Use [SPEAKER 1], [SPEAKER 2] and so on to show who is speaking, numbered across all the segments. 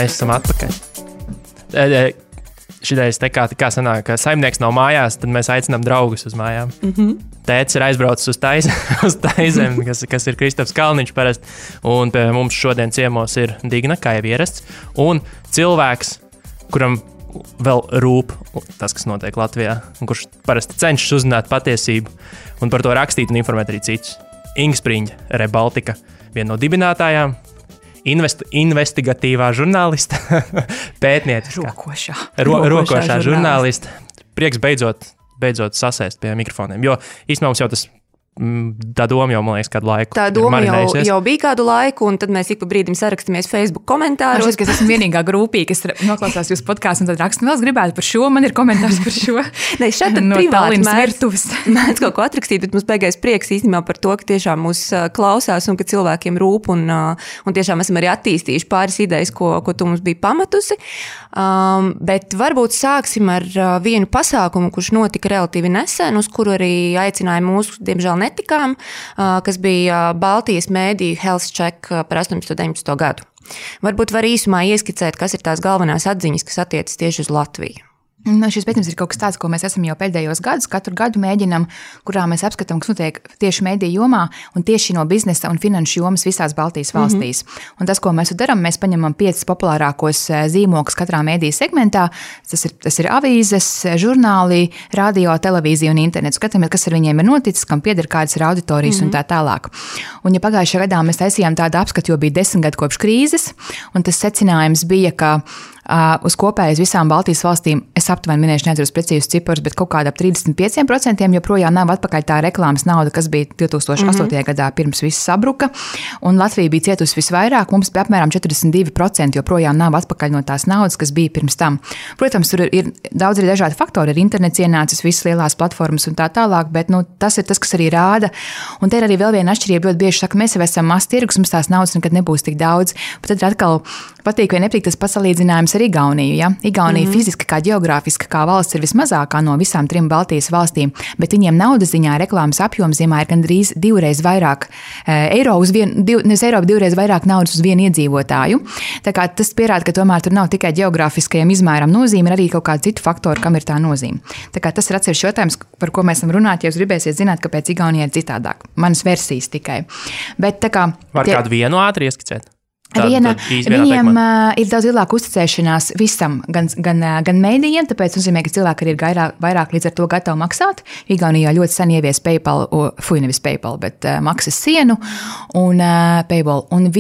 [SPEAKER 1] mēs esam atpakaļ. Šitais te kā sanāk, ka saimnieks nav mājās, tad mēs aicinām draugus uz mājām. Tētis ir aizbraucis uz Taizem, kas ir Kristofs Kalniņš parasti, un pie mums šodien ciemos ir Digna, kā jau ierasts, un cilvēks, kuram vēl rūp tas, kas notiek Latvijā, un kurš parasti cenšas uzzināt patiesību, un par to rakstīt un informēt arī citus. Inga Spriņģa, Rebaltika, viena no dibinātājām, investigatīvā žurnālista, pētnieciskā. Rokošā žurnālista. Prieks beidzot sasēst pie mikrofoniem, jo īstenībā mums jau tas tā doma jau, man liekas, kādu laiku.
[SPEAKER 2] Tā doma jau bija kādu laiku, un tad mēs ik pa brīdim sarakstamies Facebook komentāros.
[SPEAKER 3] Es esmu vienīgā grupī, kas noklausās jūsu podkāstu un tad raksta, vēl es gribētu par šo, man ir komentārs par šo.
[SPEAKER 2] Ne, šeit tad
[SPEAKER 3] no
[SPEAKER 2] privāti
[SPEAKER 3] mēdz
[SPEAKER 2] kaut ko atrakstīt, bet mums beigais prieks īstenībā par to, ka tiešām mūs klausās un ka cilvēkiem rūp, un tiešām esam arī attīstījuši pāris idejas, ko tu mums bija pamatusi. Bet varbūt sāksim ar vienu pasākumu, kurš notika relatīvi nesen, uz kuru arī aicināja mūsu, diemžēl, netikām, kas bija Baltijas mēdīju Health Check par 18-19 gadu. Varbūt var īsumā ieskicēt, kas ir tās galvenās atziņas, kas attiecas tieši uz Latviju.
[SPEAKER 3] Šis pētījums ir kaut kas tāds, ko mēs esam jau pēdējos gadus, katru gadu mēģinam, kurā mēs apskatām, kas notiek tieši mediju jomā un tieši no biznesa un finanšu jomas visās Baltijas valstīs. Un tas, ko mēs darām, mēs paņemam 5 populārākos zīmogus katrā mediju segmentā. Tas ir avīzes, žurnāli, radio, televīzija un internets. Skatāmies, kas ar viņiem ir noticis, kam pieder kādas ir auditorijas un tā tālāk. Un ja pagājušajā gadā mēs taisījām tādu apskatu, jo bija 10 gadu kopš krīzes, un tas secinājums bija, ka uz kopējas visām Baltijas valstīm, es aptuveni minēšu, neatceros precīzus ciparus, bet kaut kādā 35% joprojām nav atpakaļ tā reklāmas nauda, kas bija 2008. Gadā pirms viss sabruka, un Latvija bija cietusi visvairāk, mums bija apmēram 42% joprojām nav atpakaļ no tās naudas, kas bija pirms tam. Protams, tur ir daudz arī dažādi faktori, ir internets ienācis, visas lielās platformas un tā tālāk, bet tas ir tas, kas arī rāda, un te ir arī vēl viena atšķirība, ļoti bieži saka, mēs jau esam mazs tirgus, mums tās naudas nekad nebūs tik daudz, bet tad atkal patīk vai nepatīk tas pasalīdzinājums ar Igauniju. Ja? Igaunija fiziski kā geogrāfiski kā valsts ir vismazākā no visām 3 Baltijas valstīm, bet viņiem naudas ziņā reklāmas apjoms ziemā ir gandrīz 2 vairāk eiro uz vienu, nevis eiro, bet 2 vairāk naudas uz vienu iedzīvotāju. Tā kā tas pierāda, ka tomēr tur nav tikai geogrāfiskajam izmēram nozīme, ir arī kaut kādi citu faktori, kam ir tā nozīme. Tā kā tas ir atsevišķs jautājums, par ko mēs esam runāt, ja jūs gribēsiet zināt, kāpēc Igaunija ir citādāk. Manas versijas tikai. Bet tā kā
[SPEAKER 1] var kādu vienu ātri ieskicēt?
[SPEAKER 3] Viņiem ir daudz lielāka uzticēšanās visam, gan mēdījiem, tāpēc nozīmē, ka cilvēki arī ir vairāk līdz ar to gatavi maksāt. Igaunijā ļoti sen ievies PayPal, nevis PayPal, bet maksas sienu un PayPal. Un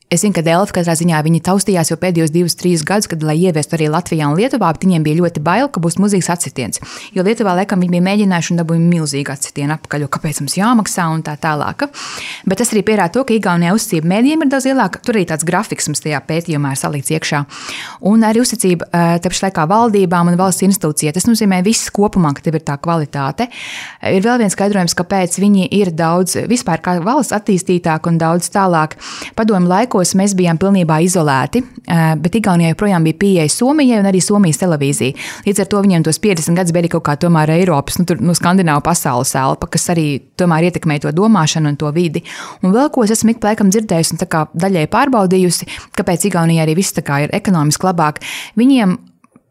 [SPEAKER 3] es zinu, ka Delfi katrā ziņā viņi taustījās jau pēdējos 2-3 gadus, kad, lai ieviestu arī Latvijā un Lietuvā, bet viņiem bija ļoti bail, ka būs milzīgs atsitiens. Jo Lietuvā, laikam, viņi bija mēģinājuši un dabūja milzīgu atsitienu apakaļ, jo kāpēc mums jāmaksā un tā tālāk. Bet tas arī pierāda to, ka Igaunijā uzticība mēdījiem ir daudz lielāka. Tur arī tāds grafiks mums tajā pētījumā ir salikts iekšā. Un arī uzticība tāpēc laikā valdībām un valsts institūcijai. Tas nozīmē viss kopumā, ka tev ir tā kvalitāte. Ir vēl viens skaidrojums, kāpēc viņi ir daudz vispār kā valsts attīstītāk un daudz tālāk. Padomu laikos mēs bijām pilnībā izolēti, bet Igaunijā joprojām bija pieeja Somijai un arī Somijas televīzija. Līdz ar to viņiem tos 50 gadus bija kaut kā tomēr Eiropas, skandināvu pasaules elpa, kas arī tomēr ietekmē to domāšanu un to vidi. Un vēl ko es esmu ik pa laikam dzirdējusi un tā kā daļai pārbaudījusi, kāpēc Igaunijā arī viss tā kā ir ekonomiski labāk. Viņiem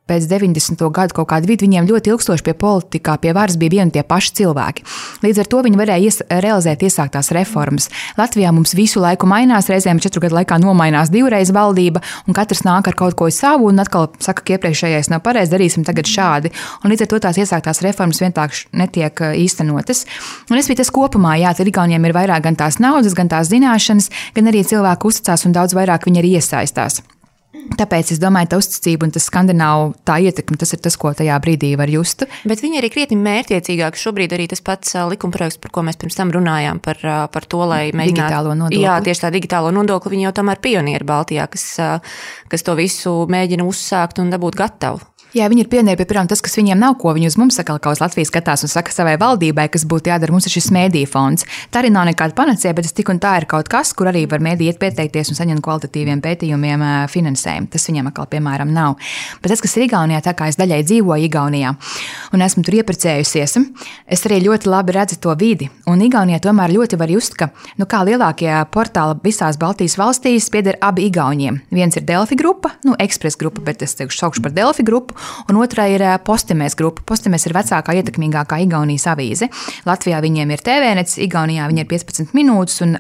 [SPEAKER 3] pēc 90. gadu kaut kādu vidu viņiem ļoti ilgstoši pie politikā, pie varas bija vieni tie paši cilvēki. Līdz ar to viņi varēja realizēt iesāktās reformas. Latvijā mums visu laiku mainās, reizēm 4 gadu laikā nomainās 2 reizes valdība, un katrs nāk ar kaut ko savu, un atkal saka, ka iepriekšējais nav pareizi, darīsim tagad šādi. Un līdz ar to tās iesāktās reformas vienkārši netiek īstenotas. Un es biju tas kopumā, tad Igauniem ir vairāk gan tās naudas, gan tās zināšanas, gan arī cilvēku uzticās un daudz vairāk viņi arī iesaistās. Tāpēc es domāju, tā uzticība un tas skandināvu tā ietekme, tas ir tas, ko tajā brīdī var just.
[SPEAKER 2] Bet viņi arī krietni mērķiecīgāk. Šobrīd arī tas pats likumprojekts, par ko mēs pirms tam runājām, par to, lai mēģinātu
[SPEAKER 3] digitālo nodokli.
[SPEAKER 2] Jā, tieši tā digitālo nodokli, viņi jau tomēr pionieri Baltijā, kas to visu mēģina uzsākt un dabūt gatavu.
[SPEAKER 3] Jā, viņi ir pionieri, piemēram, tas, kas viņiem nav, ko viņi uz mums saka, kā uz Latvijas skatās un saka savai valdībai, kas būtu jādara, mums ir šis mēdīju fonds. Tā arī nav nekāda panacea, bet tas tik un tā ir kaut kas, kur arī var mēdī iet pieteikties un saņemt kvalitatīviem pētījumiem finansējumu. Tas viņiem atkal, piemēram, nav. Bet tas, kas ir Igaunijā, tā kā es daļai dzīvoju Igaunijā un esmu tur ieprecējusies, es arī ļoti labi redzu to vidi. Un Igaunijā tomēr ļoti var just, ka, kā lielākie portāli visās Baltijas valstīs pieder abi Igauniem. Viens ir Delfi grupa, Express grupa, bet es saukšu par Delfi grupu. Un otrā ir Postimēs grupa. Postimēs ir vecākā, ietekmīgākā Igaunijas avīze. Latvijā viņiem ir TVNets, Igaunijā viņi ir 15 minūtes un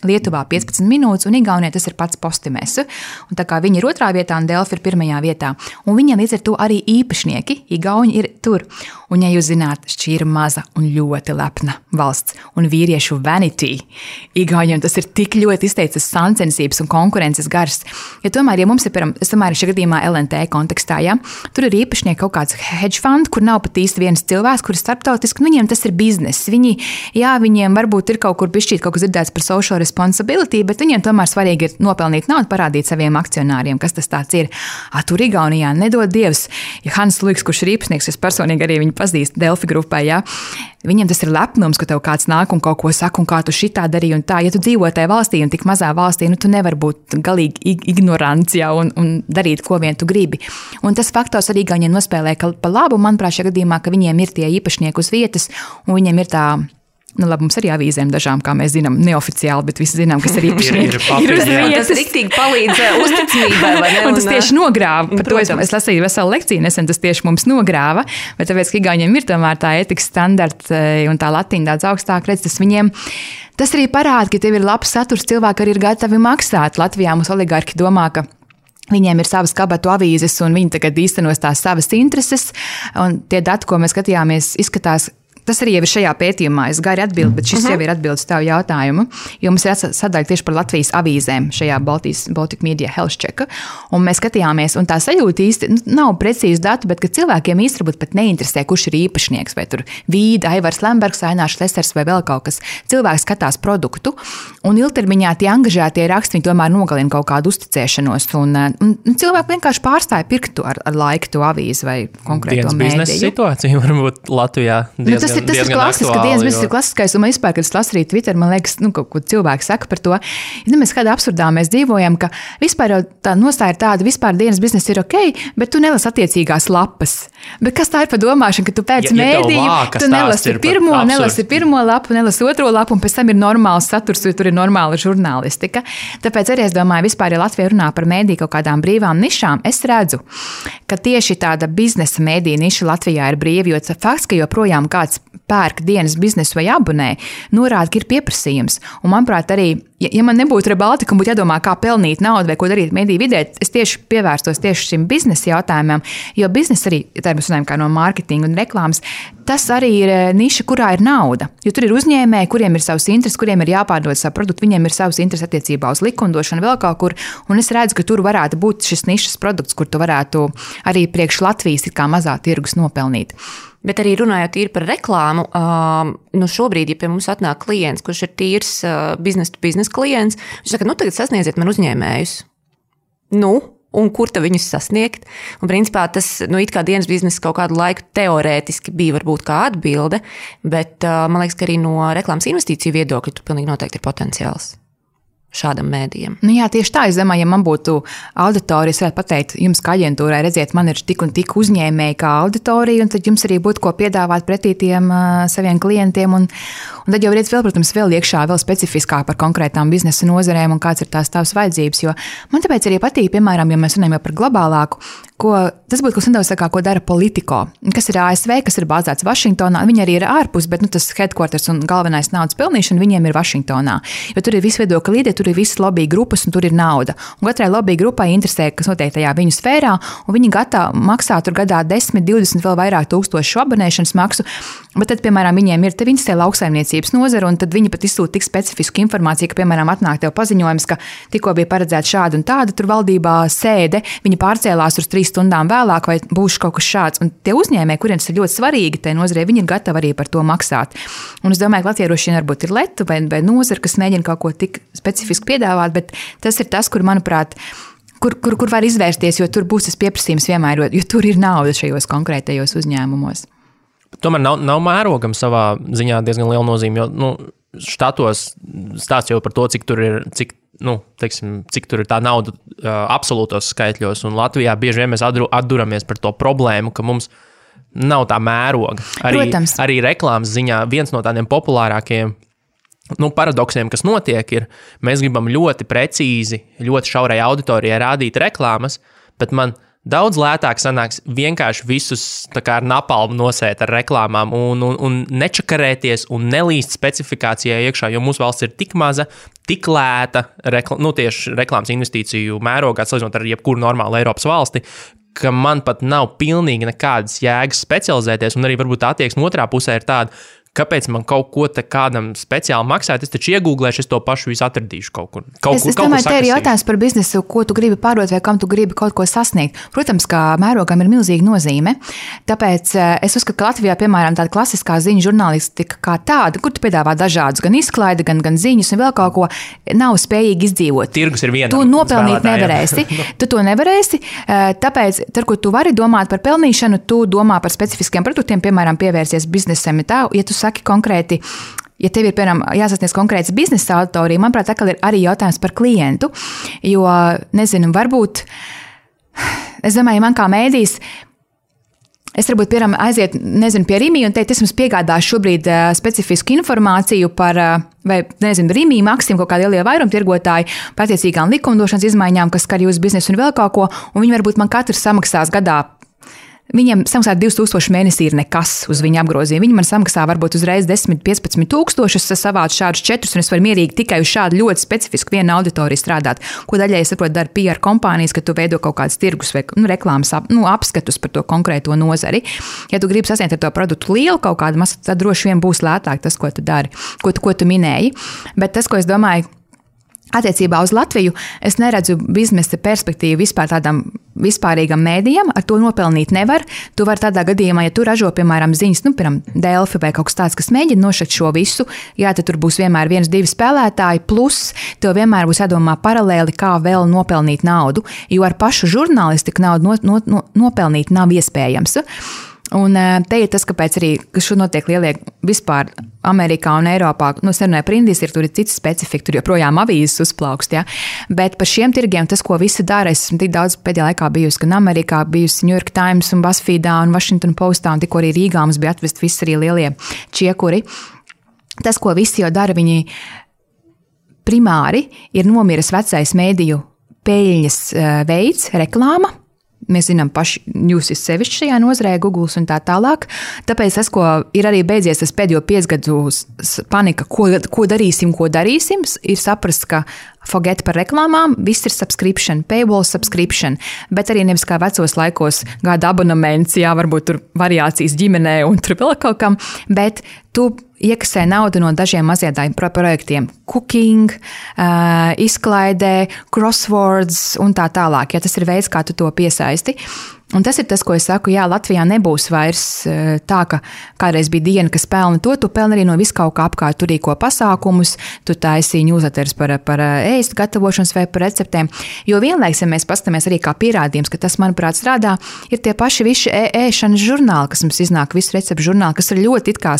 [SPEAKER 3] Lietuvā 15 minūtes, un Igaunijā tas ir pats Postimēs. Un tā kā viņi ir otrā vietā, un Delfi ir pirmajā vietā. Un viņiem līdz ar to arī īpašnieki, Igauni ir tur. Un, ja jūs zināt, šī ir maza un ļoti lepna valsts, un vīriešu vanity. Igauniem tas ir tik ļoti izteicas sacensības un konkurences gars. Ja tomēr, ja mums ir, es tomēr šajā gadījumā LNT kontekstā, tur ir īpašnieki kaut kāds hedge fund, kur nav pat īsti viens cilvēks, kur ir starptautiski, un viņiem tas ir bizness. Viņiem varbūt ir kaut kur bišķīt kaut kas dzirdēts par social responsibility, bet viņiem tomēr svarīgi ir nopelnīt naudu, parādīt saviem akcionāriem, kas tas tāds ir. Tur Igaunijā nedod Dievs, ja Hans Luiks, kurš ir īpašnieks, es personīgi arī viņu pazīstu Delfi grupai, viņiem tas ir lepnums, ka tev kāds nāk un kaut ko saka, un kā tu šitā darīji un tā. Ja tu dzīvo tajā valstī un tik mazā valstī, tu nevar būt galīgi ignorants un darīt, ko vien tu gribi. Un tas faktors arī Igauniem nospēlē pa labu, manuprāt, šajā gadījumā, ka viņiem ir tie īpašnieki uz vietas, un viņiem ir tā. Labi, mums arī avīzēm dažām, kā mēs zinām, neoficiāli, bet visi zinām, kas ir īpašnieki.
[SPEAKER 2] Tas riktīgi palīdz uzticamībai, vai ne?
[SPEAKER 3] Un tas tieši nogrāva. Par to es lasīju veselu lekciju nesen, tas tieši mums nogrāva, bet tāpēc, ka Igauniem ir tomēr tā etikas standarta un tā latiņa daudz augstāk redz, tas arī parāda, ka tev ir labs saturs, cilvēki arī ir gatavi maksāt. Latvijā mums oligarki domā, ka viņiem ir savas kabatu avīzes un viņi tagad īstenos tās savas intereses, un tie dati, ko mēs skatījāmies, izskatās. Tas arī jau ir šajā pētījumā. Es gari atbildu, bet šis jau ir atbildes tavu jautājumu. Jo mums ir sadaļa tieši par Latvijas avīzēm šajā Baltic Media Health Check. Un mēs skatījāmies, un tā sajūta īsti nav precīzi datu, bet ka cilvēkiem īsti varbūt pat neinteresē, kurš ir īpašnieks. Vai tur Vīda, Aivars Lembergs, Ainārs Lesers vai vēl kaut kas. Cilvēks skatās produktu, un ilgtermiņā tie angažētie raksti, viņi tomēr nogalina kaut kādu uzticēšanos. Un cilvēki vienkārši pārstāja pirktu ar laiku to avīzi vai konkrēto mēdīju.
[SPEAKER 1] Biznesa situācija varbūt Latvijā diezgan.
[SPEAKER 3] Tas ir klasiski, ka dienas biznesa ir klasiskais, un man vispār, kad es lasu arī Twitter, man liekas, kaut ko cilvēki saka par to. Mēs kādā absurdā mēs dzīvojam, ka vispār jau tā nostāja ir tāda, vispār dienas biznesa ir ok, bet tu nelas attiecīgās lapas. Bet kas tā ir par domāšanu, ka tu pēc mēdīju, tu nelasi pirmo lapu, nelasi otro lapu, un pēc tam ir normāls saturs, jo tur ir normāla žurnālistika. Tāpēc arī es domāju, vispār, ja Latvija runā par mēdīju kaut kādām brīvām nišām, es redzu, ka tieši tāda biznesa mēdīja niša Latvijā ir brīva, jo fakts, ka joprojām kāds pērk dienas biznesu vai abonē, norāda, ka ir pieprasījums. Un, manuprāt, arī, ja man nebūtu Rebaltika un būtu jādomā, kā pelnīt naudu vai ko darīt mediju vidē, es tieši pievērstos tieši šim biznesa jautājumam, jo biznesa arī, tā mēs runājam kā no mārketinga un reklāmas, tas arī ir niša, kurā ir nauda. Jo tur ir uzņēmēji, kuriem ir savs intereses, kuriem ir jāpārdod savu produktu, viņiem ir savs intereses attiecībā uz likumdošanu vēl kaut kur, un es redzu, ka tur varētu būt šis nišas produkts, kur tu varētu arī priekš Latvijas ir kā mazā tirgus nopelnīt.
[SPEAKER 2] Bet arī runājot īri par reklāmu, šobrīd, ja pie mums atnāk klients, kurš ir tīrs biznesa klients, viņš saka, tagad sasniedziet man uzņēmējus. Un kur tad viņus sasniegt? Un principā tas, it kā dienas biznesa kaut kādu laiku teorētiski bija varbūt kā atbilde, bet man liekas, ka arī no reklāmas investīciju viedokļa tur pilnīgi noteikti ir potenciāls šādam mēdījam.
[SPEAKER 3] Jā, tieši tā, es domāju, ja man būtu auditorija, es varētu pateikt jums kā aģentūrai, redziet, man ir tik un tik uzņēmēji kā auditorija, un tad jums arī būtu ko piedāvāt pretī tiem saviem klientiem, un tad jau redz vēl, protams, vēl iekšā, vēl specifiskāk par konkrētām biznesa nozarēm un kāds ir tās tavas vajadzības, jo man tāpēc arī patīk, piemēram, ja mēs runājam jau par globālāku, tas būtu kas nedaudz tā kā, ko dara Politico, kas ir ASV, kas ir bāzēts Vašingtonā, viņi arī ir ārpus, bet tas headquarters un galvenais naudas pelnīšana viņiem ir Vašingtonā, jo tur ir visi viedokļi līderi, tur ir visas lobby grupas un tur ir nauda. Un katrai lobby grupai interesē, kas notiek tajā viņu sfērā, un viņi gatavi maksā tur gadā 10, 20 vēl vairāk tūkstošu abonēšanas maksu, bet tad, piemēram, viņiem ir te viņas te lauksaimniecības nozara, un tad viņi pat izsūta tik specifisku informāciju, ka, piemēram, atnāk tev paziņojums, ka tikko bija paredzēts šāda un tāda tur valdībā sēde, viņi pārcēlās uz 3 stundām vēlāk, vai būs kaut kas šāds. Un tie uzņēmēji, kuriem tas ir ļoti svarīgi, tai nozarei, viņi ir gatavi arī par to maksāt. Un es domāju, ka latvieši varbūt ir leta vai nozara, kas mēģina kaut ko tik specifiski piedāvāt, bet tas ir tas, kur, manuprāt, kur var izvērsties, jo tur būs tas pieprasījums vienmēr, jo tur ir nauda šajos konkrētajos uzņēmumos.
[SPEAKER 1] Tomēr nav mērogam savā ziņā diezgan liela nozīme, jo štatos stāsts jau par to, cik tur ir, cik tur ir tā nauda absolūtos skaitļos, un Latvijā bieži vien mēs atduramies par to problēmu, ka mums nav tā mēroga. Arī reklāmas ziņā viens no tādiem populārākajiem paradoksiem, kas notiek, ir, mēs gribam ļoti precīzi, ļoti šaurai auditorijai rādīt reklāmas, bet man daudz lētāk sanāks vienkārši visus tā kā ar napalmu nosēt ar reklāmām un nečakarēties un nelīst specifikācijai iekšā, jo mūsu valsts ir tik maza, tik lēta, tieši reklāmas investīciju mērogā, salīdzinot ar jebkuru normālu Eiropas valsti, ka man pat nav pilnīgi nekādas jēgas specializēties, un arī varbūt attieksme otrā pusē ir tāda, kāpēc man kaut ko te kādam speciāli maksāt, es taču iegūglēšu, es to pašu visu atradīšu kaut kur.
[SPEAKER 3] Es domāju, te ir jautājums par biznesu, ko tu gribi pārdot vai kam tu gribi kaut ko sasniegt. Protams, ka mērogam ir milzīga nozīme, tāpēc es uzskatu, ka Latvijā, piemēram, tāda klasiskā ziņu žurnālistika kā tāda, kur tu piedāvā dažādus, gan izklaidi, gan ziņas un vēl kaut ko, nav spējīgi izdzīvot.
[SPEAKER 1] Tirgus ir vienam.
[SPEAKER 3] Tu nopelnīt nevarēsi. Tu to nevarēsi, tāpēc, kur tu vari domāt par pelnīšanu, tu domā par specifiskiem produktiem, piemēram, pievērsies biznesam. Ja tu saki konkrēti, ja tev ir, piemēram, jāsasniedz konkrēts biznesa auditorija, manuprāt, atkal ir arī jautājums par klientu, jo, nezinu, varbūt, es domāju, man kā mēdījis, es varbūt, piemēram, aiziet, nezinu, pie Rimi un teikt, es jums piegādāšu šobrīd specifisku informāciju par, vai, nezinu, Rimi, Maksim, kaut kādi lielie vairumtirgotāji, par attiecīgām likumdošanas izmaiņām, kas skar jūsu biznesu un vēl kaut ko, un viņi varbūt man katrs samaksās gadā. Viņiem samaksāt 2000 mēnesī ir nekas uz viņa apgrozījumu. Viņi man samaksā varbūt uzreiz 10-15 tūkstošus, es savācu šādus 4, un es varu mierīgi tikai uz šādu ļoti specifisku vienu auditoriju strādāt. Ko daļai, es saprotu, dara PR kompānijas, ka tu veido kaut kādas tirgus vai reklāmas apskatus par to konkrēto nozari. Ja tu gribi sasniegt ar to produktu lielu kaut kādu masu, tad droši vien būs lētāk tas, ko tu dari, ko tu minēji. Bet tas, ko es domāju, attiecībā uz Latviju, es neredzu biznesa perspektīvu vispār tādam vispārīgam mēdījam, ar to nopelnīt nevar. Tu vari tādā gadījumā, ja tu ražo, piemēram, ziņas, piemēram, Delfi vai kaut kas tāds, kas mēģina nošakt šo visu, jā, tad tur būs vienmēr 1-2 spēlētāji, plus tev vienmēr būs jādomā paralēli, kā vēl nopelnīt naudu, jo ar pašu žurnālistiku naudu nopelnīt nav iespējams. Un te ir tas, kāpēc arī šo notiek lielie vispār Amerikā un Eiropā, es nerunāju par Indijas, tur ir cits specifika, tur joprojām avīzes uzplaukst, ja? Bet par šiem tirgiem tas, ko visi dara, es esmu tik daudz pēdējā laikā bijusi, gan Amerikā, bijusi New York Times un BuzzFeedā un Washington Postā, un tikko arī Rīgā mums bija atvest visi arī lielie čiekuri. Tas, ko visi jau dara, viņi primāri ir nomiris vecais mēdīju peļņas veids, reklāma. Mēs zinām paši, jūs esat sevišķi šajā nozarē, Google un tā tālāk. Tāpēc tas, ko ir arī beidzies, tas pēdējo 5 gadu panika, ko darīsim, ir saprast, ka forget par reklāmām, viss ir subscription, paywall subscription, bet arī nevis kā vecos laikos gada abonements, jā, varbūt tur variācijas ģimenē un tur vēl kaut kam, bet tu iekasē naudu no dažiem maziem projektiem. Cooking, izklaidē, crosswords un tā tālāk. Ja tas ir veids, kā tu to piesaisti. Un tas ir tas, ko es saku, jā, Latvijā nebūs vairs tā, ka kādreiz bija diena, kas pelna to, tu pelni arī no viskaut kā apkārt, tu rīko pasākumus, tu taisī newsletters par ēst gatavošanas vai par receptēm. Jo vienlaiks, ja mēs pastamies arī kā pierādījums, ka tas, manuprāt, strādā, ir tie paši visi ēšanas žurnāli, kas mums iznāk, visu receptu žurnāli, kas ir ļoti it kā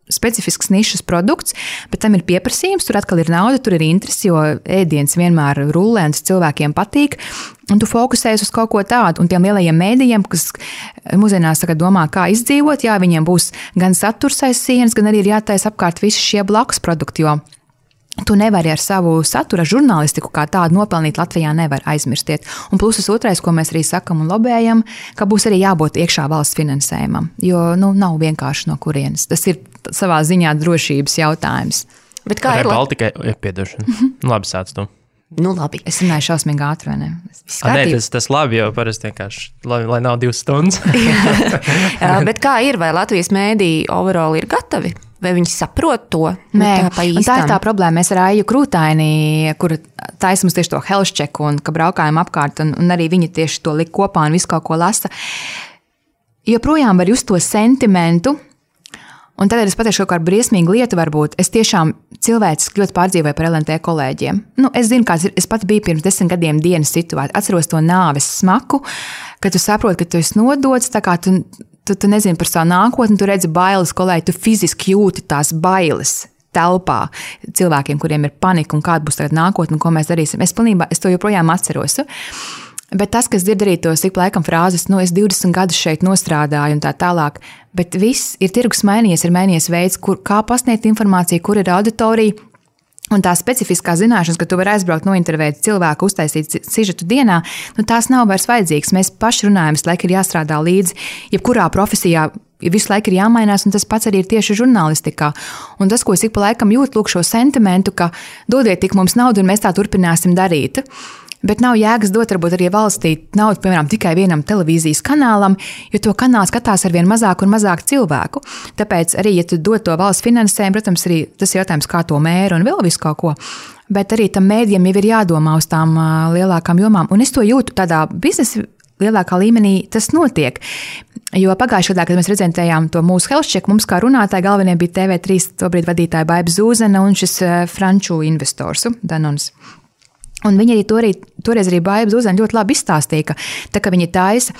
[SPEAKER 3] specifisks nišas produkts, bet tam ir pieprasījums, tur atkal ir nauda, tur ir interesi, jo ēdiens vienmēr rullē un tas cilvēkiem patīk. Un tu fokusējies uz kaut ko tādu, un tiem lielajiem mēdījiem, kas mūsdienās domā, kā izdzīvot, jā, viņiem būs gan saturs aiz sienas, gan arī ir jātaisa apkārt visi šie blakus produkti, jo tu nevari ar savu satura žurnālistiku kā tādu nopelnīt Latvijā nevar aizmirstiet. Un pluses otrais, ko mēs arī sakam un lobējam, ka būs arī jābūt iekšā valsts finansējumam, jo nav vienkārši no kurienes. Tas ir savā ziņā drošības jautājums.
[SPEAKER 2] Bet kā ir
[SPEAKER 1] Baltikai? Piedošana. Labi, sāc tu.
[SPEAKER 2] Labi.
[SPEAKER 3] Es runāju šausmīgi ātri, vai ne?
[SPEAKER 1] Nē, tas labi, jo parasti vienkārši, lai nav 2 stundas.
[SPEAKER 2] Bet kā ir, vai Latvijas mēdīji overall ir gatavi? Vai viņi saprot to?
[SPEAKER 3] Nē, un tā ir tā problēma. Mēs ar Aiju Krūtaini, kur taisa mums tieši to health check un ka braukājam apkārt, un arī viņi tieši to lik kopā un visu kaut ko lasa. Joprojām var just to sentimentu, Un tad es pateikšu kaut kādu briesmīgu lietu, varbūt. Es tiešām cilvēciski ļoti pārdzīvoju par LNT kolēģiem. Es zinu, kāds ir. Es pat biju pirms 10 gadiem dienas situācijā. Atceros to nāves smaku, kad tu saproti, ka tu esi nodots, tā kā tu nezini par savu nākotni, tu redzi bailes kolēģi, tu fiziski jūti tās bailes telpā cilvēkiem, kuriem ir panika un kāda būs tagad nākotne un ko mēs darīsim. Es to joprojām atceros. Bet tas, kas dzird arī tos ik laikam frāzes, es 20 gadus šeit nostrādāju un tā tālāk, bet viss ir tirgus mainījies, ir mainījies veids, kā pasniegt informāciju, kur ir auditorija. Un tā specifiskā zināšanas, ka tu vari aizbraukt, nointervēt cilvēku, uztaisīt sižetu dienā, tās nav vairs vajadzīgas. Mēs paši runājam, visu laiku ir jāstrādā līdzi, jebkurā profesijā visu laiku ir jāmainās, un tas pats arī ir tieši žurnālistikā. Un tas, ko es ik pa laikam jūtu, lūk šo sentimentu, ka dodiet tik mums naudu, un mēs tā turpināsim darīt. Bet nav jēgas dot varbūt arī valstī naudu, piemēram, tikai vienam televīzijas kanālam, jo to kanālu skatās arvien mazāk un mazāk cilvēku. Tāpēc arī, ja tu dod to valsts finansējumu, protams, arī tas jautājums, kā to mēra un vēl visu kaut ko. Bet arī tam mēdījam jau ir jādomā uz tām lielākām jomām. Un es to jūtu tādā biznesa lielākā līmenī, tas notiek. Jo pagājušajā gadā, kad mēs prezentējām to mūsu health check, mums kā runātāji galvenie bija TV3 tobrīd vadītāja Baiba Zūzena un šis franču investors Danons. Un viņi arī toreiz arī Baiba Zūzena ļoti labi izstāstīja, ka tā, ka viņi taisa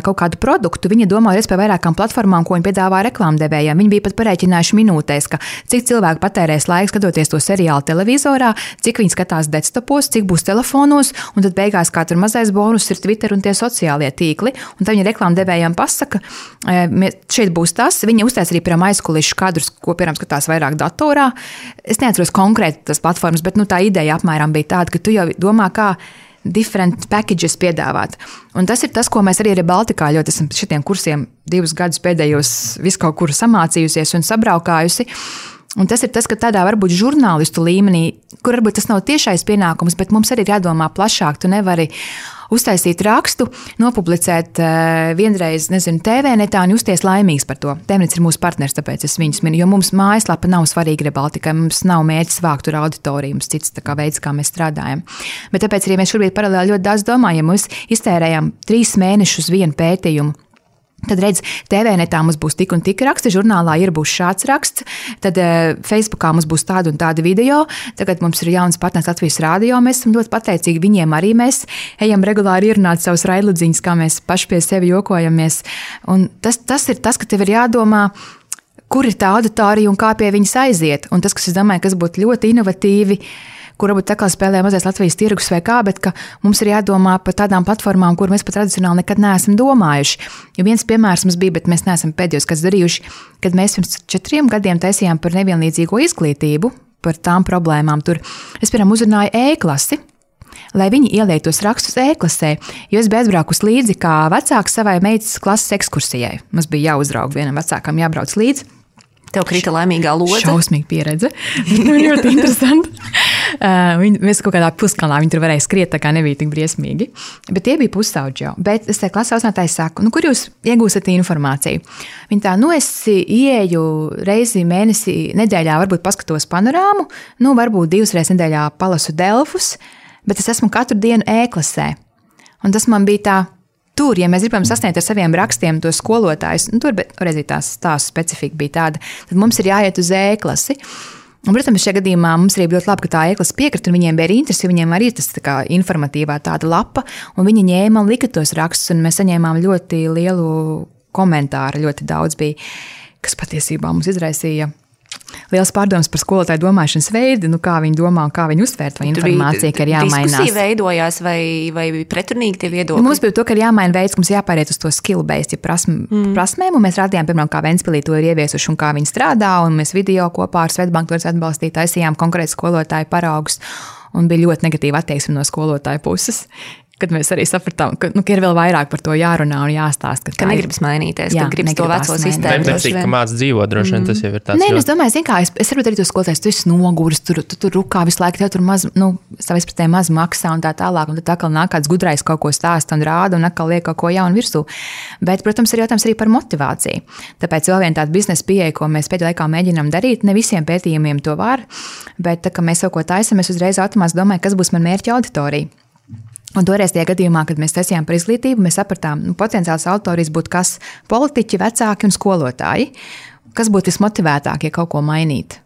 [SPEAKER 3] kaut kādu produktu, viņi domā par vairākām platformām, ko viņi piedāvā reklāmdevējiem. Viņi bija pat parēķinājuši minūtēs, ka cik cilvēki patērēs laiku skatoties to seriālu televizorā, cik viņi skatās desktopos, cik būs telefonos, un tad beigās kā tur mazais bonus ir Twitter un tie sociālie tīkli. Un tad viņi reklāmdevējiem pasaka, šeit būs tas. Viņi uztais arī piemēram aizkulišu kadrus, ko piemēram skatās vairāk datorā. Es neatceros konkrēti tas platformas, bet tā ideja apmēram bija tāda, ka tu jau domā, kā different packages piedāvāt. Un tas ir tas, ko mēs arī Baltikā ļoti esam šitiem kursiem 2 gadus pēdējos visu kaut kur samācījusies un sabraukājusi. Un tas ir tas, ka tādā varbūt žurnālistu līmenī, kur varbūt tas nav tiešais pienākums, bet mums arī ir jādomā plašāk. Tu nevari uztaisīt rakstu, nopublicēt vienreiz, TV netā un justies laimīgs par to. TVNets ir mūsu partners, tāpēc es viņus minu, jo mums mājaslapa nav svarīga Baltikai, mums nav mērķis vākt tur auditoriju, mums cits veids, kā mēs strādājam. Bet tāpēc arī mēs šobrīd paralēli ļoti daudz domājam, mēs iztērējam 3 mēnešus vienu pētījumu. Tad redz, TVNetā mums būs tik un tik raksti, žurnālā būs šāds raksts, tad Facebookā mums būs tāda un tāda video, tagad mums ir jauns partners Latvijas Rādio, mēs esam ļoti pateicīgi viņiem arī mēs ejam regulāri ierunāt savus raidludziņus, kā mēs paši pie sevi jokojamies. Un tas ir tas, ka tev ir jādomā, kur ir tā auditorija un kā pie viņas aiziet. Un tas, kas es domāju, kas būtu ļoti inovatīvi, kur varbūt tā kā spēlē mazais Latvijas tirgus vai kā, bet ka mums ir jādomā par tādām platformām, kur mēs pat tradicionāli nekad neesam domājuši. Jo viens piemērs mums bija, bet mēs neesam pēdējos kāds darījuši, kad mēs pirms 4 gadiem taisījām par nevienlīdzīgo izglītību, par tām problēmām tur. Es, piemēram, uzrunāju E-klasi, lai viņi ieliek tos rakstus E-klasē, jo es biju aizbraukus līdzi kā vecāks savai meitas klases ekskursijai. Mums bija jāuzrauga vienam vecākam, jābrauc līdzi.
[SPEAKER 2] Tev krita laimīgā lodze.
[SPEAKER 3] Šausmīga pieredze. Ļoti interesanti. Mēs kaut kādā puskalnā viņi tur varēja skriet, tā kā nebija tik briesmīgi. Bet tie bija pusauģi jau. Bet es te klases audzinātāji saku, kur jūs iegūstat informāciju? Viņi tā, es ieeju reizi mēnesī, nedēļā varbūt paskatos panorāmu, varbūt 2 reizes nedēļā palasu Delfus, bet es esmu katru dienu E-klasē. Un tas man bija tā, tur, ja mēs gribam sasniegt ar saviem rakstiem tos skolotājus, tur reiz tās stāstu specifika bija tāda, tad mums ir jāiet uz E-klasi. Un, protams, šajā gadījumā mums arī bija ļoti labi, ka tā E-klase piekrita, un viņiem bija interesi, viņiem arī tas tā kā informatīvā tāda lapa, un viņi ņēma un lika tos rakstus, un mēs saņēmām ļoti lielu komentāru, ļoti daudz bija, kas patiesībā mums izraisīja liels pārdoms par skolotāju domāšanas veidu, kā viņi domā un kā viņi uztvērt to informāciju, ka ir jāmainās.
[SPEAKER 2] Diskusija veidojās vai pretrunīgi tie viedokļi?
[SPEAKER 3] Mums bija to, ka ir jāmaina veids, ka mums jāpāriet uz to skill-based, ja prasmēm, un mēs rādījām, piemēram, kā Ventspilī to ir ieviesuši un kā viņi strādā, un mēs video kopā ar Svetbanku to atbalstīt, taisījām konkrēti skolotāju paraugus, un bija ļoti negatīva attieksme no skolotāju puses. Kad mēs arī sapratām, ka ir vēl vairāk par to jārunā un jāstāst.
[SPEAKER 2] Ka negribas mainīties, ka gribas to veco sistēmu.
[SPEAKER 1] Neprecīgi, ka māc dzīvot droši vien, tas jau ir tāds.
[SPEAKER 3] Nē, es domāju, es varu arī to skolotājs, tu esi noguris, tu tur rukā visu laiku, tev tur maz, savā izpratnē maz maksā un tā tālāk, un tad atkal nāk kāds gudrais kaut ko stāsta un rāda un atkal liek kaut ko jaunu virsū. Bet, protams, ir jautājums arī par motivāciju. Tāpēc vēl viena tāda biznesa pieeja, ko mēs pēdējā laikā mēģinām darīt, ne visiem pētījumiem to var, bet tā, ka mēs kaut ko taisam, es uzreiz automātiski domāju, kas būs man mērķa auditorija. Un toreiz tajā gadījumā, kad mēs taisījām par izglītību, mēs sapratām, potenciāls auditorijas būtu kas politiķi, vecāki un skolotāji. Kas būtu vismotivētākie kaut ko mainīt?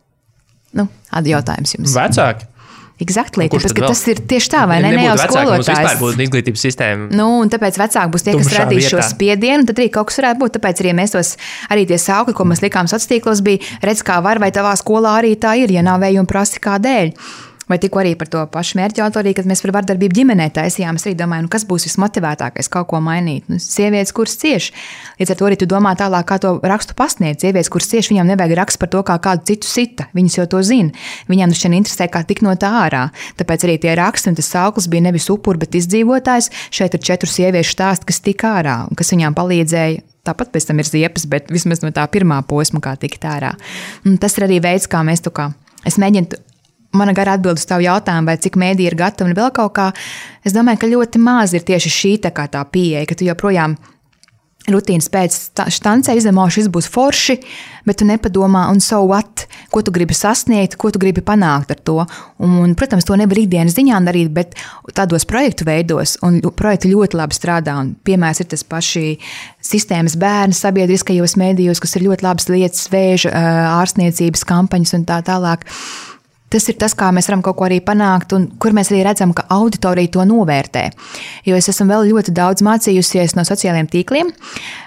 [SPEAKER 3] Jautājums jums.
[SPEAKER 1] Vecāki.
[SPEAKER 3] Exactly, tāpēc, ka tas ir tieši tā, vai ne jau skolotājs.
[SPEAKER 1] Mums vispār būtu izglītības sistēma.
[SPEAKER 3] Un tāpēc vecāki būs tie, kas radīs šo spiedienu, un tad arī kaut kas varētu būt. Tāpēc arī mēs arī tie saukļi, ko mēs likām sociālos tīklos, bija redz, kā var, vai tavā skolā arī tā ir, ja nav vējuma prasi kādēļ. Vai tikko arī par to pašu mērķu autoriju, kad mēs par vardarbību ģimenē taisījām, es arī domāju, kas būs vismotivētākais kaut ko mainīt. Sievietes, kuras cieši. Līdz ar to arī tu domā tālāk, kā to rakstu pasniegt. Sievietes, kuras cieši, viņām nevajag rakstu par to, kā kādu citu sita. Viņas jau to zina. Viņām šķiet interesē, kā tik no tā ārā. Tāpēc arī tie raksti un tas sauklis bija nevis upuri, bet izdzīvotājs. Šeit ir 4 sieviešu stāsti, kas tika ārā un kas viņām palīdzēja. Tāpat pēc tam ir ziepes, bet vismaz no tā pirmā posma, kā tikt ārā. Un tas ir arī veids, kā mēs es mēģinu. Mana gara atbild uz tavu jautājumu, vai cik mēdī ir gatavi un vēl kaut kā. Es domāju, ka ļoti maz ir tieši šī tā pieeja, ka tu joprojām rutīnas pēc štancē izdemoši, šis būs forši, bet tu nepadomā, un so what, ko tu gribi sasniegt, ko tu gribi panākt ar to. Un, protams, to nevar ikdienas ziņā darīt, bet tādos projektu veidos, un projekti ļoti labi strādā. Un piemērs ir tas paši sistēmas bērni sabiedriskajos mēdījos, kas ir ļoti labas lietas, vēža, ārstniecības kampaņas un tā tālāk. Tas ir tas, kā mēs varam kaut ko arī panākt, un kur mēs arī redzam, ka auditorija to novērtē. Jo es esmu vēl ļoti daudz mācījusies no sociālajiem tīkliem,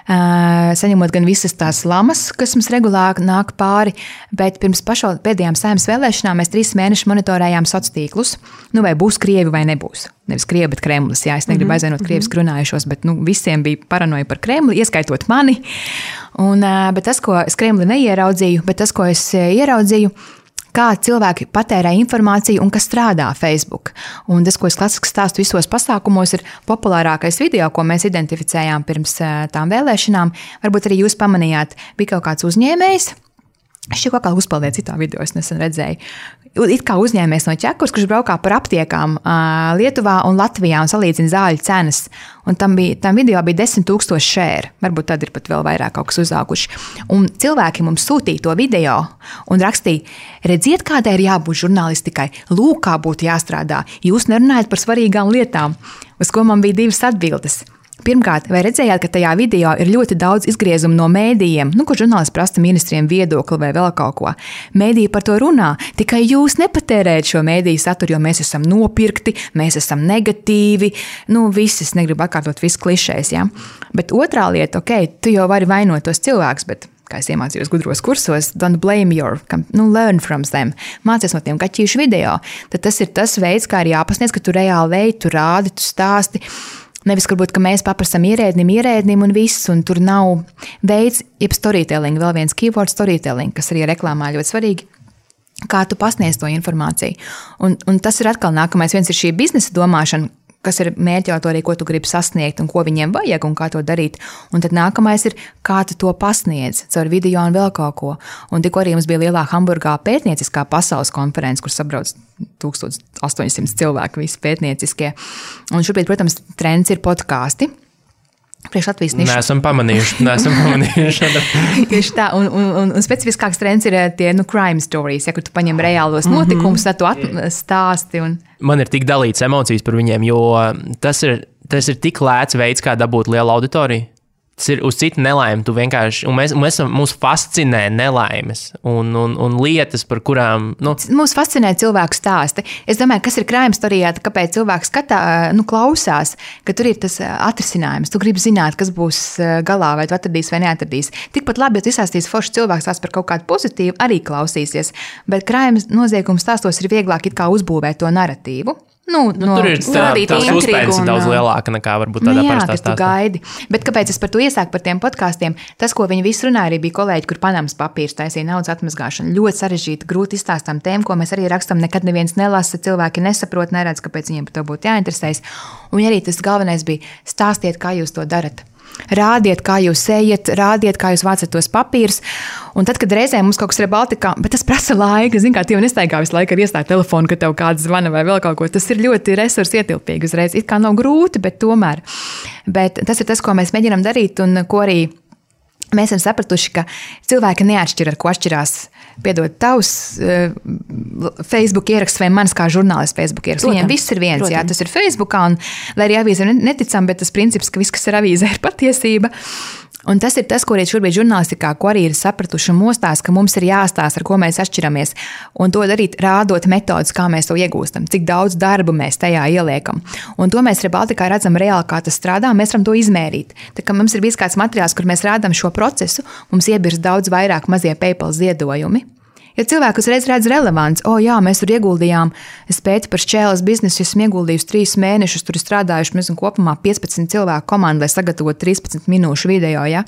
[SPEAKER 3] saņemot gan visas tās lamas, kas mums regulāri nāk pāri, bet pirms pēdējām Saeimas vēlēšanām mēs 3 mēnešus monitorējām sociālos tīklus, vai būs Krievi vai nebūs. Nevis Krievi, bet Kremlis. Jā, es negribu aizvainot krievisku runājušos, bet visiem bija paranoja par Kremli, ieskaitot mani. Bet tas, ko es Kremli neieraudzīju, bet tas, ko es ieraudzīju, kā cilvēki patērē informāciju un kas strādā Facebook. Un tas, ko es klasiski stāstu visos pasākumos, ir populārākais video, ko mēs identificējām pirms tām vēlēšanām. Varbūt arī jūs pamanījāt, bija kaut kāds uzņēmējs. Šķiet, kaut kā uzpaldīja citā video, es nesen redzēju. It kā uzņēmējs no Čekurs, kurš braukā par aptiekām Lietuvā un Latvijā un salīdzina zāļu cenas. Un tam video bija 10,000 share. Varbūt tad ir pat vēl vairāk kaut kas uzauguši. Un cilvēki mums sūtīja to video un rakstīja, redziet, kādai ir jābūt žurnālistikai, lūk, kā būtu jāstrādā. Jūs nerunājat par svarīgām lietām. Uz ko man bija 2 atbildes. Pirmkārt, vai redzējāt, ka tajā video ir ļoti daudz izgriezumu no mēdījiem, kur žurnālisti prasa ministriem viedokli vai vēl kaut ko? Mēdīji par to runā, tikai jūs nepatērējat šo mēdīju saturu, jo mēs esam nopirkti, mēs esam negatīvi, viss, es negribu atkārtot visu klišēs, ja? Bet otrā lieta, tu jau vari vainot tos cilvēkus, bet kā es iemācījos gudros kursos, don't blame learn from them. Mācies no tiem kaķīšu video. Tad tas ir tas veids, kā ir jāpasniedz, ka tu reāli veidi, tu rādi, tu stāsti. Nevis, varbūt, ka mēs paprasam ierēdnim un viss, un tur nav veids, jeb storytelling, vēl viens keyword storytelling, kas arī reklāmā ļoti svarīgi, kā tu pasniedz to informāciju. Un tas ir atkal nākamais, viens ir šī biznesa domāšana, kas ir mērķi autorija, ko tu gribi sasniegt un ko viņiem vajag un kā to darīt. Un tad nākamais ir, kā tu to pasniedz caur video un vēl kaut ko. Un tikko arī mums bija lielā Hamburgā pētnieciskā pasaules konference, kur sabrauc 1800 cilvēku, visi pētnieciskie. Un šobrīd, protams, trends ir podkāsti. Priekš Latvijas nišu.
[SPEAKER 1] Neesam pamanījuši.
[SPEAKER 3] Tieši tā, un specifiskāks trends ir tie crime stories, ja, kur tu paņem reālos notikumus, tad tu stāsti.
[SPEAKER 1] Man ir tik dalīts emocijas par viņiem, jo tas ir tik lēts veids, kā dabūt lielu auditoriju. Tas ir uz citu nelaimi. Tu vienkārši, mūs fascinē nelaimes un lietas, par kurām.
[SPEAKER 3] Mūs fascinē cilvēku stāsti. Es domāju, kas ir crime storijā, kāpēc cilvēks klausās, ka tur ir tas atrisinājums. Tu gribi zināt, kas būs galā, vai tu atradīs vai neatradīs. Tikpat labi, ja tu izstāstīs forši cilvēks tās par kaut kādu pozitīvu, arī klausīsies. Bet crime noziegums stāstos ir vieglāk it kā uzbūvēt to narratīvu.
[SPEAKER 1] Tur ir tās uzspējas daudz lielāka nekā varbūt tādā parastā stāstā.
[SPEAKER 3] Bet kāpēc es par to iesāku par tiem podkāstiem? Tas, ko viņi visi runāja, arī bija kolēģi, kur Panamas papīrs taisīja naudas atmazgāšanu. Ļoti sarežģīta, grūti izstāstām tēmu, ko mēs arī rakstam, nekad neviens nelasa, cilvēki nesaprot, neredz, kāpēc viņiem par to būtu jāinteresējas. Un arī tas galvenais bija stāstiet, kā jūs to darat. Rādiet, kā jūs ejat, rādiet, kā jūs vācat tos papīrus. Un tad, kad reizē mums kaut kas ir Baltikā, bet tas prasa laika, zin kā, tie nestaigā visu laiku ar iestāju telefonu, ka tev kāds zvana vai vēl kaut ko. Tas ir ļoti resursu ietilpīgi uzreiz. It kā nav grūti, bet tomēr. Bet tas ir tas, ko mēs mēģinām darīt un ko arī mēs esam sapratuši, ka cilvēki neatšķir, ar ko atšķirās, piedod, tavs Facebook ieraksts vai mans kā žurnālists Facebook ieraksts. Viņiem viss ir viens, jā, tas ir Facebookā, un lai arī avīze neticam, bet tas princips, ka viss, kas ir avīzē, ir patiesība. Un tas ir tas, ko arī šobrīd žurnālistikā, ko arī ir sapratuši un mostās, ka mums ir jāstāsta, ar ko mēs atšķiramies. Un to darīt, rādot metodus, kā mēs to iegūstam, cik daudz darba mēs tajā ieliekam. Un to mēs Rebaltikā redzam reāli, kā tas strādā, mēs varam to izmērīt. Tā kā mums ir bijis kāds materiāls, kur mēs rādām šo procesu, mums iebirst daudz vairāk mazie PayPal ziedojumi. Ja cilvēki uzreiz redz relevants, jā, mēs tur ieguldījām, es pētu par šķēles biznesu, esmu ieguldījusi 3 mēnešus, tur ir strādājuši, mēs kopumā 15 cilvēku komandu, lai sagatavotu 13 minūšu video, ja?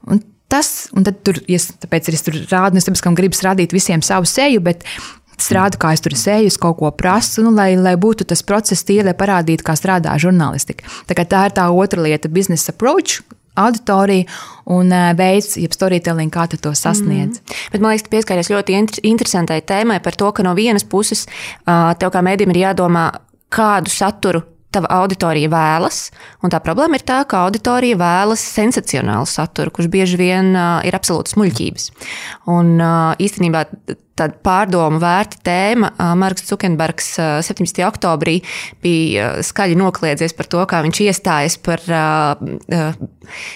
[SPEAKER 3] Un tad tur, tāpēc es tur rādu, es tāpēc, ka gribas rādīt visiem savu seju, bet es rādu, kā es tur seju, es kaut ko prasu, lai būtu tas process tīri, lai parādītu, kā strādā žurnālistika. Tā ir tā otra lieta, business approach, auditorija un veids, jeb storytelling, kā tu to sasniedz.
[SPEAKER 2] Bet man liekas, tu pieskāries ļoti interesantai tēmai par to, ka no vienas puses tev kā mēdījim ir jādomā, kādu saturu tava auditorija vēlas, un tā problēma ir tā, ka auditorija vēlas sensacionālu saturu, kurš bieži vien ir absolūtas muļķības. Un īstenībā tāda pārdomu vērta tēma. Marks Zukenbergs 17. oktobrī bija skaļi nokļiedzies par to, kā viņš iestājas par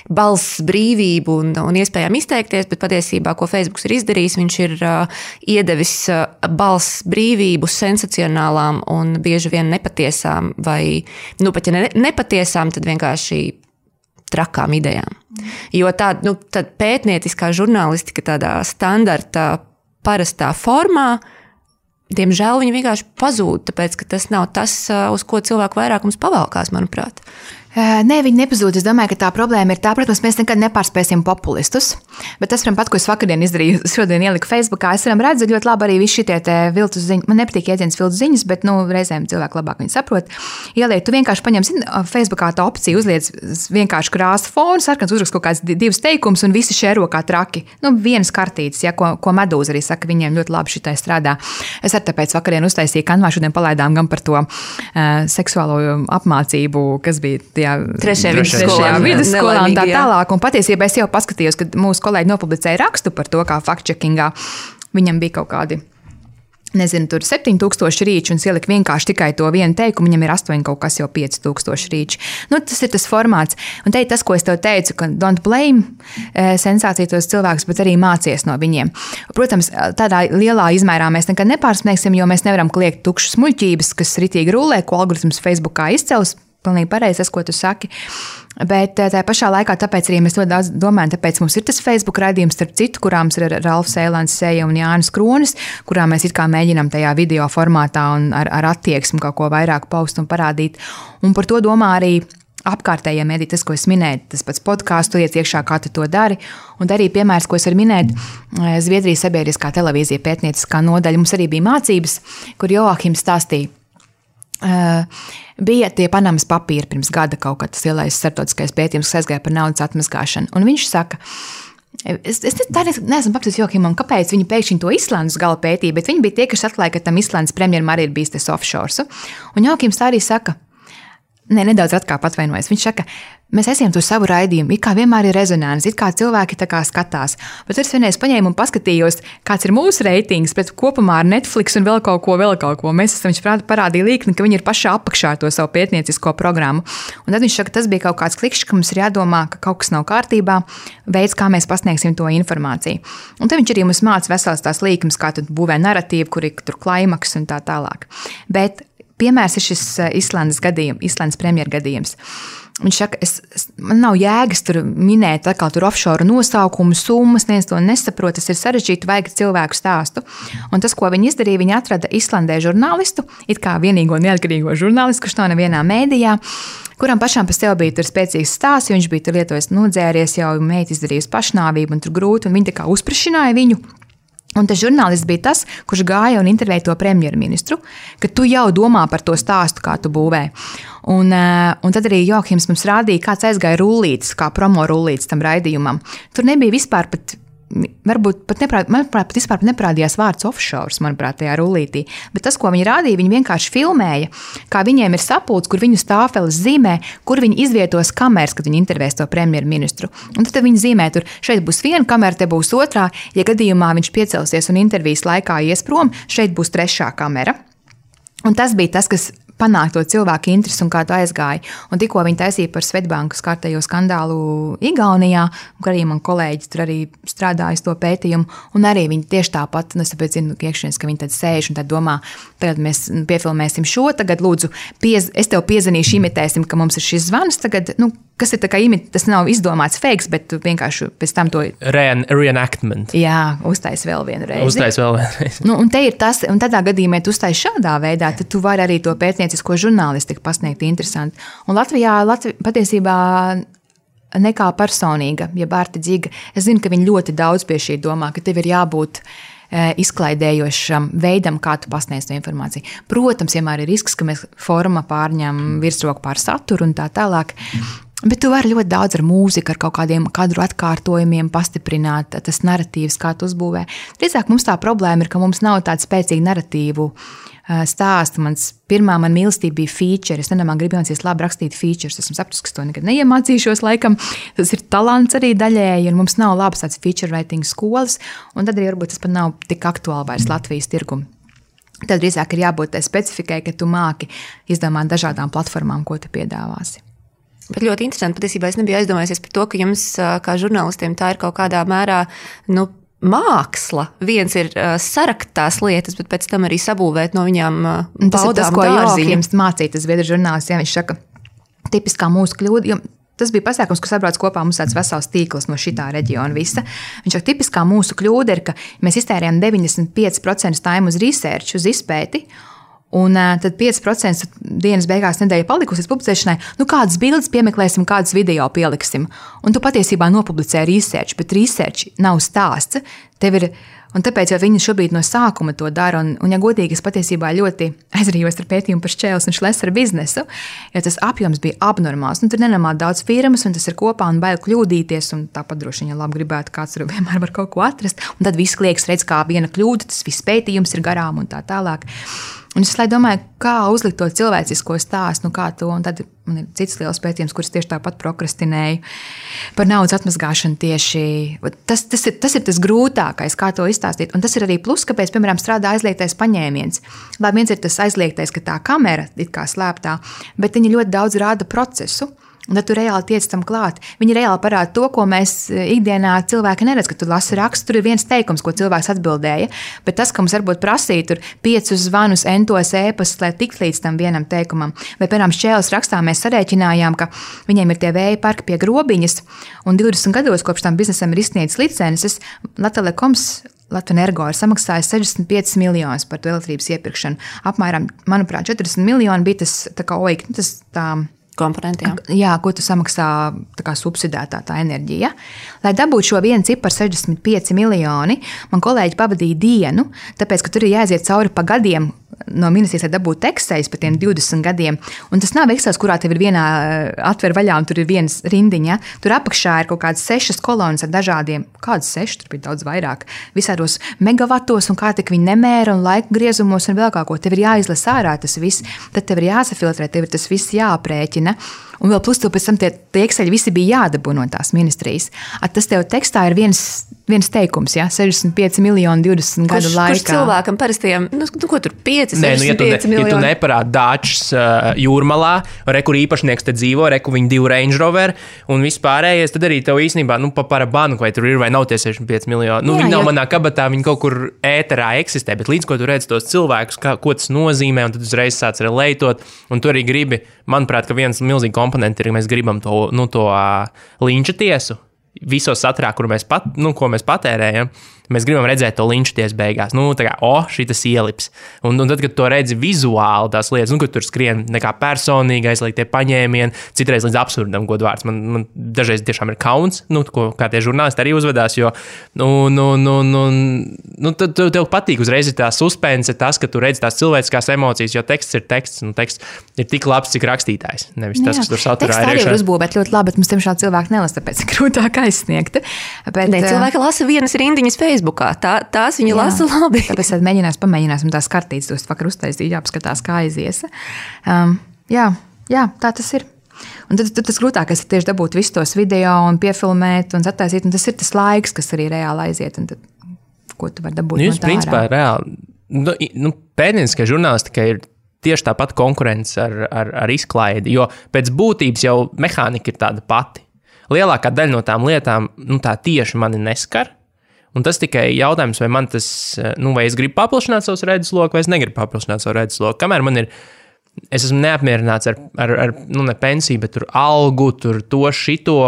[SPEAKER 2] balss brīvību un iespējām izteikties, bet patiesībā, ko Facebooks ir izdarījis, viņš ir iedevis balss brīvību sensacionālām un bieži vien nepatiesām vai, pat ja nepatiesām, tad vienkārši trakām idejām. Jo tāda pētnieciskā žurnālistika tādā standarta parastā formā, diemžēl viņi vienkārši pazūd, tāpēc, ka tas nav tas, uz ko cilvēku vairāk mums pavalkās, manuprāt.
[SPEAKER 3] Nē, viņi nepazūd. Es domāju, ka tā problēma ir tā, protams, mēs nekad nepārspēsim populistus, bet tas, pat, ko es vakardien izdarīju, šodien ieliku Facebookā, es redzu ļoti labi arī visi šitie viltus ziņas. Man nepatīk jēdziens viltus ziņas, bet, reizēm cilvēki labāk viņi saprot. Ieliek, tu vienkārši paņem, Facebookā tā opcija uzliec vienkārši krāsa fonu, sarkans uzrakst kaut kāds 2 teikumus un visi šēro kā traki. Vienas kartītes, ja, ko Medūza arī saka, viņiem ļoti labi šitai strādā. Es arī tāpēc vakardien uztaisīju Canvā, šodien palaidām gan par to seksuālo apmācību, kas bija trešajā vidusskolā un tā tālāk. Un patiesībā es jau paskatījos, kad mūsu kolēģi nopublicēja rakstu par to, kā fact-checkingā viņam bija kaut kādi, tur 7000 rīči un es ieliku vienkārši tikai to vienu teikumu, viņam ir 8 kaut kas jau 5000 rīči. Tas ir tas formāts. Un te ir tas, ko es tev teicu, ka don't blame sensāciju tos cilvēkus, bet arī mācies no viņiem. Protams, tādā lielā izmērā mēs nekad nepārsniegsim, jo mēs nevaram kliegt tukšas muļķības, kas ritīgi rulē, ko algoritms Facebookā izcels. Pilnīgi pareizi tas, ko tu saki. Bet tā pašā laikā, tāpēc arī mēs ļoti daudz domājam, tāpēc mums ir tas Facebook raidījums, starp citu, kurām ir Ralfs Eilants Seja un Jānis Kronis, kurā mēs it kā mēģinām tajā video formātā un ar attieksmi kaut ko vairāk paust un parādīt. Un par to domā arī apkārtējie mediji, tas, ko es minēju, tas pats podkāstu, iet iekšā, kā tu to dari. Un arī piemērs, ko es varu minēt, Zviedrijas sabiedriskā televīzija pētnieciskā nodaļa. Mums arī bija mācības, kur Joahims stāstīja. Bija tie Panamas papīri pirms gada kaut kad tas lielais starptautiskais pētījums, kas aizgāja par naudas atmazgāšanu. Un viņš saka, es neesmu papildus Johimam, kāpēc viņi pēkšņi to Islandes gala pētīja, bet viņi bija tie, kas atklāja, ka tam Islandes premjeram arī ir bijis tas offshore. Un Johims tā arī saka, nedaudz atkāp atvainojas. Viņš saka, mēs esam to savu raidījumu, it kā vienmēr ir rezonants, it kā cilvēki tā kā skatās. Bet es vienreiz paņēmu un paskatījos, kāds ir mūsu reitings, bet kopumā ar Netflix un vēl kaut ko. Mēs esam, viņš parādīja līkni, ka viņi ir pašā apakšā to savu pētniecisko programmu. Un tad viņš saka, tas bija kaut kāds klikšķis, ka mums ir jādomā, ka kaut kas nav kārtībā, veids, kā mēs pasniegsim to informāciju. Un tad viņš arī mums māca veselas tās līknes, kā tad būvē narratīvu, kur ir tur klaimaks un tā tālāk. Bet piemērs ir šis Islandes premjera gadījums. Viņš saka, man nav jēgas tur minēt atkal tur offshore nosaukumu, summas, neviens to nesaprot, tas ir sarežģīti, vajag cilvēku stāstu. Un tas, ko viņi izdarīja, viņi atrada Islandē žurnālistu, it kā vienīgo neatkarīgo žurnālistu, kurš nav nevienā mēdījā, kuram pašām pa sev bija tur spēcīgs stāsts, jo viņš bija tur lietojis nodzēries, jau meita izdarījusi pašnāvību un tur grūti, un viņi tā kā uzprašināja viņu. Un tas žurnālists bija tas, kurš gāja un intervēja to premjerministru, ka tu jau domā par to stāstu, kā tu būvē. Un tad arī Johims mums rādīja, kāds aizgāja rullītis, kā promo rullītis tam raidījumam. Tur nebija vispār pat, manuprāt, vispār neparādījās vārds offshore, manuprāt, tajā rullītī. Bet tas, ko viņi rādīja, viņi vienkārši filmēja, kā viņiem ir sapulcs, kur viņu stāfeles zīmē, kur viņi izvietos kameras, kad viņi intervēs to premjerministru. Un tad viņi zīmē tur, šeit būs viena kamera, te būs otrā, ja gadījumā viņš piecelsies un intervijas laikā ies prom, šeit būs trešā kamera. Un tas bija tas, kas panākt to cilvēku interesi un kā tu aizgāji. Un tikko viņi taisīja par Svetbankas kārtējo skandālu Igaunijā, un arī man kolēģi tur arī strādāja to pētījumu, un arī viņi tieši tāpat, un es tāpēc zinu, iekšienes, ka viņi tad sēž un tad domā, tagad mēs piefilmēsim šo, tagad lūdzu, es tev piezinīšu, imitēsim, ka mums ir šis zvans, tagad, kas ir tā kā tas nav izdomāts fakes, bet tu vienkārši pēc tam to...
[SPEAKER 1] Reenactment.
[SPEAKER 3] Jā, uztais vēl vienu reizi. Un te ir tas, un tādā gadījumā tu uztais šādā veidā, tad tu vari arī to pētniecisko žurnālistiku pasniegt interesanti. Un Latvijā patiesībā nekā personīga, ja Bārta Dziga, es zinu, ka viņi ļoti daudz pie šī domā, ka tev ir jābūt izklaidējošam veidam, kā tu pasniedz to informāciju. Protams, vienmēr ir risks, ka mēs forma pārņem virsroku pār saturu un tā tālāk, bet tu vari ļoti daudz ar mūziku, ar kaut kādiem kadru atkārtojumiem pastiprināt tas naratīvs, kā tu uzbūvē. Drīzāk mums tā problēma ir, ka mums nav tāda spēcīga naratīvu stāsta. Pirmā man mīlestība bija feature. Es nedomāju, gribu mācīties labi rakstīt features. Esmu sapratusi, ka to nekad neiemācīšos laikam. Tas ir talants arī daļēji, un mums nav labas tāds feature writing skolas, un tad arī varbūt tas pat nav tik aktuāli vairs Latvijas tirgumu. Tad drīzāk ir jābūt tai specifikai, ka tu māki izdomāt dažādām platformām, ko tu piedāvāsi.
[SPEAKER 2] Bet ļoti interesanti, patiesībā es nebiju aizdomājusies par to, ka jums kā žurnālistiem tā ir kaut kādā mērā, māksla. Viens ir sarakt tās lietas, bet pēc tam arī sabūvēt no viņām
[SPEAKER 3] baudām tas ir tas, ko Jorgs mācīja, tas Zviedru žurnālists, ja viņš saka, tipiskā mūsu kļūda, jo tas bija pasākums, kas sabrauc kopā mums tāds vesels tīkls no šitā reģiona visa. Viņš saka, tipiskā mūsu kļūda ir, ka mēs iztērējam 95% time uz research, uz izpēti, un tad 5% dienas beigās nedēļa palikusi līdz publicēšanai, kādas bildes piemeklēsim, kādas video pieliksim. Un tu patiesībā nopublicē research, bet research nav stāsts. Tev ir, un tāpēc jau viņi šobrīd no sākuma to dara, un ja godīgi, es patiesībā ļoti aizrījos ar pētījumu par Šķēles un Šlesera biznesu, jo tas apjoms bija abnormāls. Tur nenormāli daudz firmas, un tas ir kopā, un bail kļūdīties, un tāpat droši vien, ja labi gribētu, kāds tur vienmēr var kaut ko atrast, un tad viss klieks redz, kā viena kļūda, tas viss pētījums ir garām un tā tālāk. Un es domāju, kā uzlikt to cilvēcisko stāstu, kā to, un tad man ir cits liels pētījums, kurus tieši tāpat prokrastinēju par naudas atmazgāšanu tieši. Tas ir tas grūtākais, kā to izstāstīt. Un tas ir arī plus, kāpēc, piemēram, strādā aizliegtais paņēmiens. Labi, viens ir tas aizliegtais, ka tā kamera it kā slēptā, bet viņi ļoti daudz rāda procesu. Un tad tu reāli tiec tam klāt. Viņi reāli parāda to, ko mēs ikdienā cilvēki neredz, ka tu lasi rakstu, tur ir viens teikums, ko cilvēks atbildēja, bet tas, ka mums varbūt prasīja tur 5 zvanus, entos ēpastus, lai tikt līdz tam vienam teikumam. Vai, piemēram, Šķēles rakstā mēs sarēķinājām, ka viņiem ir tie vēja parki pie Grobiņas, un 20 gados kopš tam biznesam ir izsniedzis licences, Latvenergo ir samaksājis 65 miljonus par to elektrības iepirkšanu. Apmēram, manuprāt, 40 miljoni bija tas tā kā oik, tas tā
[SPEAKER 2] komponenti,
[SPEAKER 3] jā, ko tu samaksā tā kā subsidētā tā enerģija. Lai dabūtu šo vienu ciparu 65 miljoni, man kolēģi pavadīja dienu, tāpēc, ka tur ir jāiziet cauri pa gadiem no ministrijas, lai dabūtu Excels par tiem 20 gadiem. Un tas nav Excels, kurā tev ir vienā atver vaļā un tur ir viens rindiņa. Tur apakšā ir kaut kādas 6 kolonas ar dažādiem, kādas 6, tur bija daudz vairāk, visādos megavatos un kā tik viņi nemēra un laika griezumos un vēl kā ko. Tev ir jāizlasa ārā tas viss, tad tev ir jāsafiltrē, tev ir tas viss jāaprēķina. Un vēl plus tev pēc tam tie Exceli visi bija jādabū no tās ministrijas. Tas tev tekstā ir viens teikums, 65 miljoni 20 gadu laikā.
[SPEAKER 2] Kurš cilvēkam parastiem, ko tur 5, 65 miljoni?
[SPEAKER 1] Ja tu neparādi Dāčs jūrmalā, kur īpašnieks te dzīvo, kur viņi 2 Range Rover un vispārējais, tad arī tev īstenībā, pa parabanu, vai tur ir vai nav tie 65 miljoni. Viņi nav manā kabatā, viņi kaut kur ēterā eksistē, bet līdz ko tu redz tos cilvēkus, ko tas nozīmē, un tad uzreiz sāc relētot, un tu arī gribi, manuprāt, ka viens milzīgi komponenti ir, ka mēs gribam to linča tiesu visos saturā, ko mēs patērējam. Mēs gribam redzēt to linču tiesu beigās. Šitas ielips. Un tad, kad to redzi vizuāli tās lietas, kad tur skrien nekā personīgi aizliegtie paņēmieni, citreiz līdz absurdam godvārds. Man dažreiz tiešām ir kauns, kā tie žurnālisti arī uzvedās, jo tev patīk uzreiz tā suspense, tas, ka tu redzi tās cilvēciskās emocijas, jo teksts ir teksts, un teksts ir tik labs, cik rakstītājs. Nevis tas, kas tur saturā ir.
[SPEAKER 3] Teksts arī var uzbūvēt ļoti labi, bet mums tiemžēl cilvēki nelasa, tāpēc grūtāk aizsniegt.
[SPEAKER 2] Cilvēki lasa vienas rindiņas Facebookā. Tās viņi lasa labi.
[SPEAKER 3] Tāpēc pamēģināsim tās kartītes, tos vakar uztaisīt, jāapskatās, kā aizies. Jā, tā tas ir. Un tad tas grūtākais ir tieši dabūt visus tos video un piefilmēt un attaisīt, un tas ir tas laiks, kas arī reāli aiziet, un tad, ko tu vari dabūt no tā ārā.
[SPEAKER 1] Principā reāli, pētnieciskā žurnālistika ir tieši tāpat konkurence ar izklaidi, jo pēc būtības jau mehānika ir tāda pati. Lielākā daļa no tām lietām, tā tieši mani neskar, un tas tikai jautājums, vai man tas, vai es gribu paplašināt savus redzesloku, vai es negribu paplašināt savu redzesloku. Kamēr man ir, es esmu neapmierināts ar ne pensiju, bet tur algu, tur to šito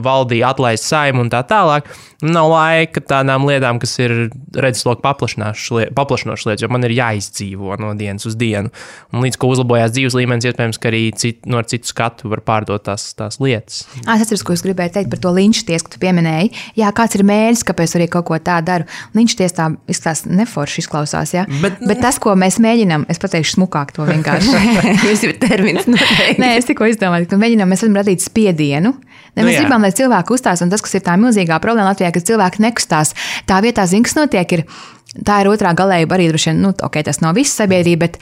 [SPEAKER 1] valdīja atlaist Saimu un tā tālāk. Nav laika tādām lietām, kas ir redzesloku paplašinošas lietas, jo man ir jāizdzīvo no dienas uz dienu. Un līdz ko uzlabojās dzīves līmenis, iespējams, ka arī ar citu skatu var pārdot tās lietas.
[SPEAKER 3] Es atceros, ko es gribēju teikt par to linču tiesu, ka tu pieminēji. Jā, kāds ir mērķis, kāpēc arī kaut ko tā daru. Linču tiesa tā izskatās neforši izklausās, jā. Bet tas, ko mēs mēģinām, es pateikšu smukāk to vienkārši.
[SPEAKER 2] Jūs ir termins noteikti.
[SPEAKER 3] Nē, es tikko izdomāju, ka mēs varam radīt spiedienu. Mēs gribam, lai cilvēki uzstās, un tas, kas ir tā milzīgā problēma Latvijā, ka cilvēki nekustās. Tā vietā, kas notiek, tā ir otrā galējība arī droši vien, tas nav viss sabiedrība, bet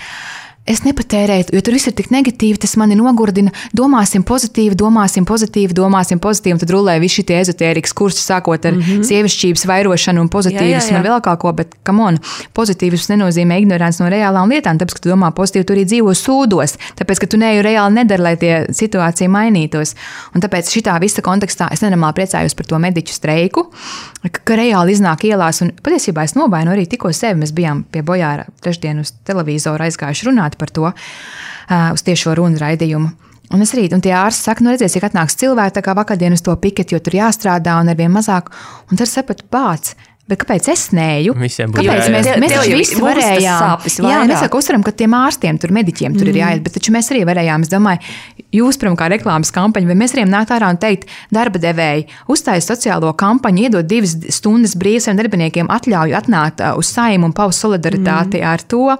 [SPEAKER 3] es nepatērēju, jo tur viss ir tik negatīvi, tas mani nogurdina. Domāsim pozitīvi, un tad rulē visi šie ezotērikas kursi, sākot ar sievišķības vairošanu un pozitīvismu un vēl kaut ko, bet, come on, pozitīvisms nenozīmē ignorants no reālām lietām, tāpēc, ka tu domā pozitīvi, tu arī dzīvo sūdos, tāpēc, ka tu neju reāli nedari, lai tie situācija mainītos. Un tāpēc šitā visa kontekstā es nenormāli priecājos par to mediķu streiku, ka reāli iznāk ielās, un patiesībā es novainu arī tikko sevi, mēs bijām pie Bojāra trešdien uz televizoru aizgājuši runāt par to, uz tiešo runu raidījumu. Un es rīt, un tie ārsti saka, redzēs, cik atnāks cilvēki, tā kā vakardien uz to piketi, jo tur jāstrādā un arvien mazāk, un tad sapratu pāc. Bet kāpēc es neju? Kāpēc mēs visi varējām? Jā, mēs uzsveram, ka tiem ārstiem, tur mediķiem tur ir jāiet, bet taču mēs arī varējām, es domāju, jūs, pirmā kā reklāmas kampaņa, vai mēs varējām nākt ārā un teikt, darba devēji, uzstājas sociālo kampaņu, iedot 2 stundas brīvs saviem darbiniekiem atļauju atnākt uz Saimu un paust solidaritāti ar to.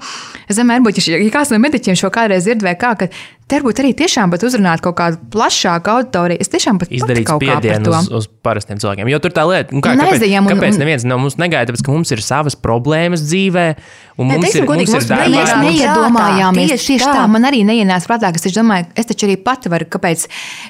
[SPEAKER 3] Es domāju, varbūt, ja kāds no mediķiem šo kādreiz dzird vai kā, ka te varbūt arī tiešām pat uzrunāt kaut kādu plašāku auditoriju. Es tiešām pat
[SPEAKER 1] izdarīt spiedienu uz parastiem cilvēkiem. Jo tur tā lieta, kāpēc neviens no mums negaida, tāpēc, ka mums ir savas problēmas dzīvē, un mums ir darbā.
[SPEAKER 3] Mēs neiedomājāmies tieši tā. Man arī neienāca prātā, ka es domāju, es taču arī pati varu, kāpēc,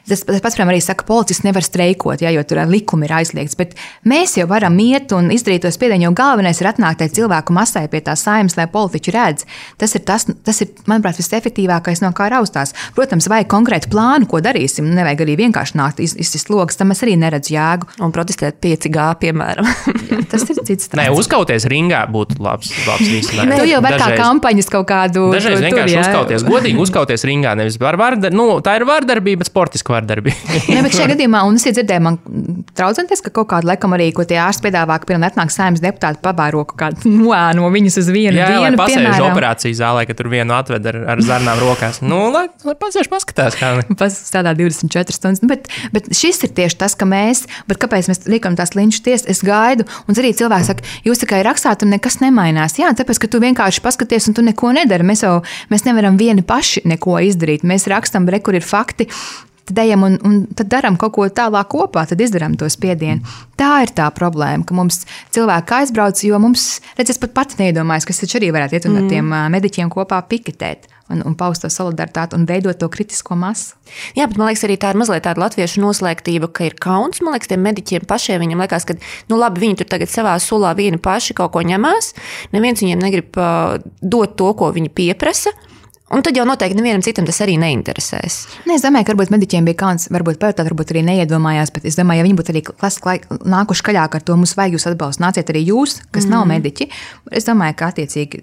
[SPEAKER 3] tas pats, piemēram, arī saka, policists nevar streikot, jo tur likumi ir aizliegts, bet mēs jau varam iet un izdarīt to spiedienu, jo galvenais ir atnākt cilvēku masai pie tā Saimas, lai politiķi redz. Tas ir, manuprāt, visefektīvākais, no kā raustās. Protams, vajag konkrētu plānu, ko darīsim. Nevajag arī vienkārši nākt izsist logas, tam es arī neredzu jēgu.
[SPEAKER 2] Un protestēt 5G, piemēram.
[SPEAKER 3] Jā, tas ir cits stāsts.
[SPEAKER 1] Nē, uzkauties ringā būtu labs risinājums.
[SPEAKER 3] Tu jau var kā kampaņas kaut kādu.
[SPEAKER 1] Dažreiz vienkārši uzkauties, godīgi uzkauties ringā, nevis tā ir vardarbība, bet sportiska vardarbība.
[SPEAKER 3] Nē, bet šajā gadījumā, un es iedzirdēju, man traucenties, ka kaut kādu laikam arī, ko tie ārsti piedāvā, ka pirmā atnāk Saeimas deputāti pabāro kaut kādu no viņas uz vienu dienu.
[SPEAKER 1] Jā, pasēž operācijas zālē, ka tur vienu atved ar zarnām rokās. Lai pasēž paskatās, kā
[SPEAKER 3] strādā 24 stundas. Bet šis ir tieši tas, ka kāpēc mēs liekam tās linču tiesas, es gaidu, un arī cilvēki saka, jūs tikai rakstāt un nekas nemainās. Jā, tāpēc, ka tu vienkārši paskaties un tu neko nedari. Mēs nevaram vieni paši neko izdarīt. Mēs rakstam, kur ir fakti, tad ejam un tad daram kaut ko tālāk kopā, tad izdarām to spiedienu. Tā ir tā problēma, ka mums cilvēki aizbrauc, jo mums, es pat pati neiedomājos, ka es taču arī varētu iet un ar tiem mediķiem kopā piketēt. Un paust to solidaritāti un veidot to kritisko masu.
[SPEAKER 2] Jā, bet man liekas, arī tā ir mazliet tāda latviešu noslēgtība, ka ir kauns. Man liekas, tiem mediķiem pašiem viņam liekas, ka labi, viņi tur tagad savā sulā vieni paši kaut ko ņemās. Neviens viņiem negrib dot to, ko viņi pieprasa. Un tad jau noteikti nevienam citam tas arī neinteresēs.
[SPEAKER 3] Nē, es domāju, ka varbūt mediķiem bija kauns, varbūt arī neiedomājās, bet es domāju, ja viņi būtu arī nākuši kaļāk ar to, mums vajag jūs atbalstu, nāciet arī jūs, kas nav mediķi. Es domāju, ka attiecīgi,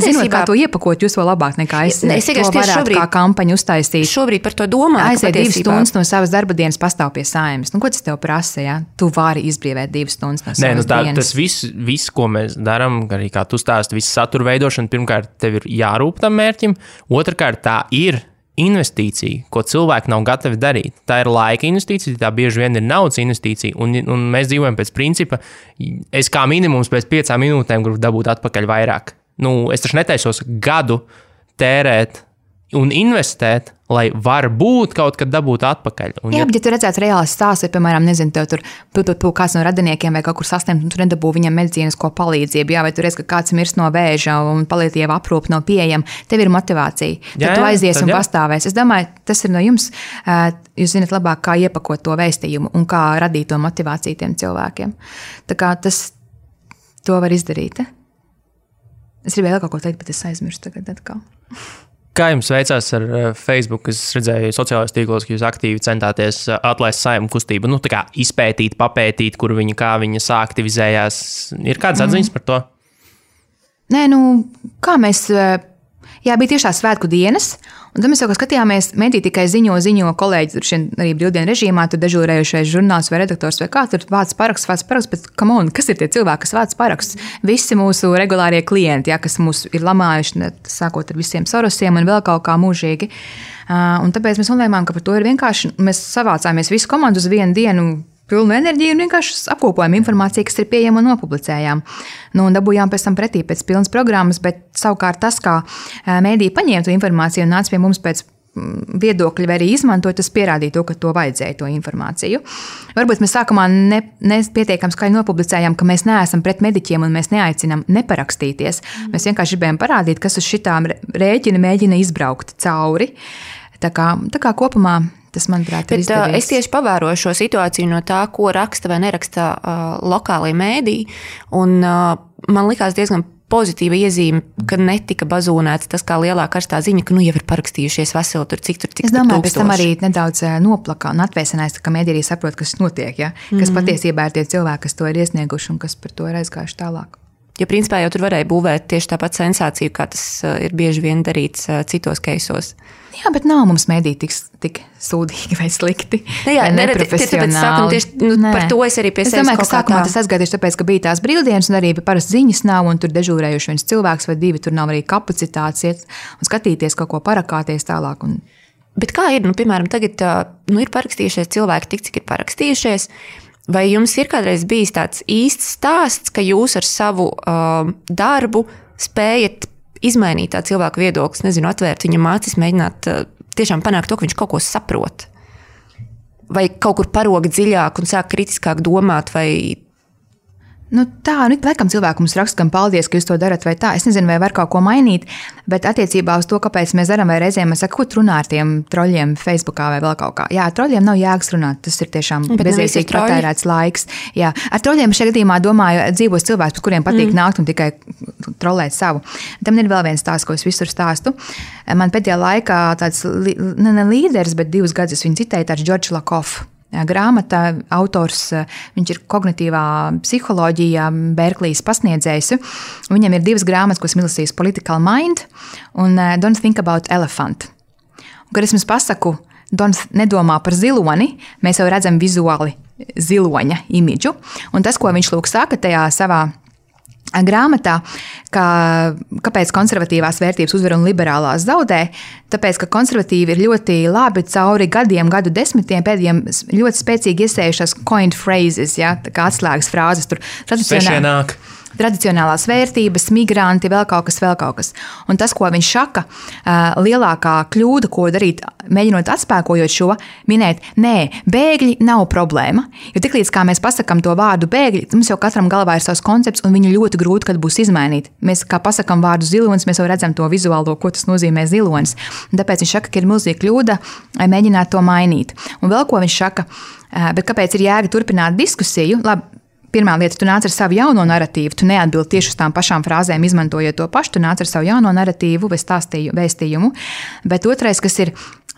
[SPEAKER 3] zinot, kā to iepakot, jūs vēl labāk nekā es to varētu kā kampaņu uztaisīt.
[SPEAKER 2] Šobrīd par to domāju.
[SPEAKER 3] Aiziet 2 stundas no savas darba dienas pastāv pie Saimas. Ko tas tev prasa, ja? Tu vari izbrīvēt 2 stundas no savas dienas.
[SPEAKER 1] Tas viss, ko mēs darām, arī kā tu stāsti, viss satura veidošana, pirmkārt, tev ir jārūp tam mērķim. Otrkārt, tā ir investīcija, ko cilvēki nav gatavi darīt. Tā ir laika investīcija, tā bieži vien ir naudas investīcija, un mēs dzīvojam pēc principa, es kā minimums pēc 5 minūtēm gribu dabūt atpakaļ vairāk. Es taču netaisos gadu tērēt un investēt, lai varbūt kaut kad dabūt atpakaļ.
[SPEAKER 3] Jā, bet ja tu redzētu reāls stāsts, vai, piemēram, nezinu, tev tur kāds no radiniekiem vai kaut kur saslimt, un tu nedabū viņam medicīnisko palīdzību, jā, vai tu redz, ka kāds mirst no vēža un palīdzība aprūpe nav pieejama, tev ir motivācija. Tad tu aizies un pastāvēs. Es domāju, tas ir no jums, jūs zināt labāk, kā iepakot to vēstījumu un kā radīt to motivāciju tiem cilvēkiem. Tā kā to var izdarīt. Es gribēju vēl kaut ko teikt, bet es aizmirstu tagad atkal.
[SPEAKER 1] Kā jums veicās ar Facebook? Es redzēju sociālajos tīklos, ka jūs aktīvi centāties atlaist Saeimu kustību, tā kā izpētīt, papētīt, kā viņa aktivizējās. Ir kādas atziņas par to?
[SPEAKER 3] Nē, kā mēs... Jā, bija tieši tā svētku dienas, un tad mēs jau skatījāmies, mediji tikai ziņo kolēģi, tur arī brīvdienu režīmā, tur dežūrējušais žurnāls vai redaktors vai kā, tur vāc paraksts, bet come on, kas ir tie cilvēki, kas vāc paraksts? Visi mūsu regulārie klienti, kas mūs ir lamājuši, sākot ar visiem Sorosiem un vēl kaut kā mūžīgi. Un tāpēc mēs nolēmām, ka par to ir vienkārši, mēs savācāmies visu komandu uz vienu dienu, pilnu enerģiju un vienkārši apkopojam informāciju, kas ir pieejama un nopublicējām. Un dabūjām pēc tam pretī pēc pilnas programmas, bet savukārt tas, kā mēdīji paņēma to informāciju un nāca pie mums pēc viedokļi vai arī izmantot, tas pierādīja to, ka to vajadzēja, to informāciju. Varbūt mēs sākumā nepietiekam skaļi nopublicējām, ka mēs neesam pret mediķiem un mēs neaicinām neparakstīties. Mēs vienkārši gribējām parādīt, kas uz šitām rēķina mēģina izbraukt cauri. Tā kā kopumā tas, manuprāt, ir izdevies.
[SPEAKER 2] Es tieši pavēroju šo situāciju no tā, ko raksta vai neraksta lokālie mēdīji, un man likās diezgan pozitīva iezīme, ka netika bazūnēts tas kā lielā karstā ziņa, ka jau ir parakstījušies veseli tur, cik
[SPEAKER 3] Es domāju, pēc tam arī nedaudz noplaka un atvēsinājās, ka mēdī arī saprot, kas notiek, ja? Kas patiesībā ir tie cilvēki, kas to ir iesnieguši un kas par to ir aizgājuši tālāk.
[SPEAKER 2] Jo principā jau tur varēja būvēt tieši tāpat sensāciju, kā tas ir bieži vien darīts citos keisos.
[SPEAKER 3] Jā, bet nav mums mēdī tik sūdīgi vai slikti.
[SPEAKER 2] Jā, neprofesionāli. Par to es arī pie sevis kaut kā tā. Es domāju,
[SPEAKER 3] ka sākumā tas aizgāja tieši tāpēc, ka bija tās brīvdienas un arī parasti ziņas nav un tur dežūrējuši viens cilvēks vai divi, tur nav arī kapacitātes iet un skatīties kaut ko parakāties tālāk.
[SPEAKER 2] Bet kā ir, piemēram, tagad ir parakstījušies cilvēki tik, cik ir parakstījušies, vai jums ir kādreiz bijis tāds īsts stāsts, ka jūs ar savu darbu spējat izmainīt tā cilvēku viedoklis, atvērt viņam acis, mēģināt tiešām panākt to, ka viņš kaut ko saprot? Vai kaut kur parog dziļāk un sāk kritiskāk domāt, vai...
[SPEAKER 3] Laikam cilvēki mums raksta, gan paldies, ka jūs to darat vai tā. Es nezinu, vai var kaut ko mainīt, bet attiecībā uz to, kāpēc mēs darām, vai reizēm mēs sakam, ko runā ar tiem troļļiem Facebookā vai vēl kaut kā. Jā, ar troļļiem nav jēgas runāt, tas ir tiešām bezjēdzīgi patērēts laiks. Jā, ar troļļiem šajā gadījumā domāju dzīvos cilvēks, par kuriem patīk nākt un tikai trolēt savu. Tam ir vēl viens stāsts, ko es visur stāstu. Man pēdējā laikā tāds ne līderis, bet 2 gadus viņu citēja tāds George Lakoff. Grāmata autors, viņš ir kognitīvā psiholoģija, Berklijas pasniedzējs. Viņam ir 2 grāmatas, ko es milasīju, Political Mind un Don't Think About Elephant. Un, kad es jums pasaku, Don't nedomā par ziloni, mēs jau redzam vizuāli ziloņa imidžu. Un tas, ko viņš lūk saka tajā savā grāmatā, kāpēc konservatīvās vērtības uzvar un liberālās zaudē, tāpēc, ka konservatīvi ir ļoti labi cauri gadu desmitiem pēdējiem ļoti spēcīgi iesējušās coined phrases, ja, kā atslēgas frāzes tur. Tradicionālās vērtības, migranti, vēl kaut kas. Un tas, ko viņš saka, lielākā kļūda, ko darīt, mēģinot atspēkojot šo, minēt, nē, bēgļi nav problēma. Jo tiklīdz kā mēs pasakam to vārdu bēgļi, mums jau katram galvā ir savs koncepts, un viņu ļoti grūti, kad būs izmainīt. Mēs, kā pasakam vārdu zilonis, mēs jau redzam to vizuālo, ko tas nozīmē zilonis. Un tāpēc viņš saka, ka ir milzīga kļūda mēģināt to mainīt. Un vēl ko viņš saka, bet kāpēc ir jēga turpināt diskusiju? Labi, pirmā lieta, tu nāc ar savu jauno narratīvu, tu neatbildi tieši uz tām pašām frāzēm, izmantojot to pašu, tu nāc ar savu jauno narratīvu vai vēstījumu. Bet otrais, kas ir,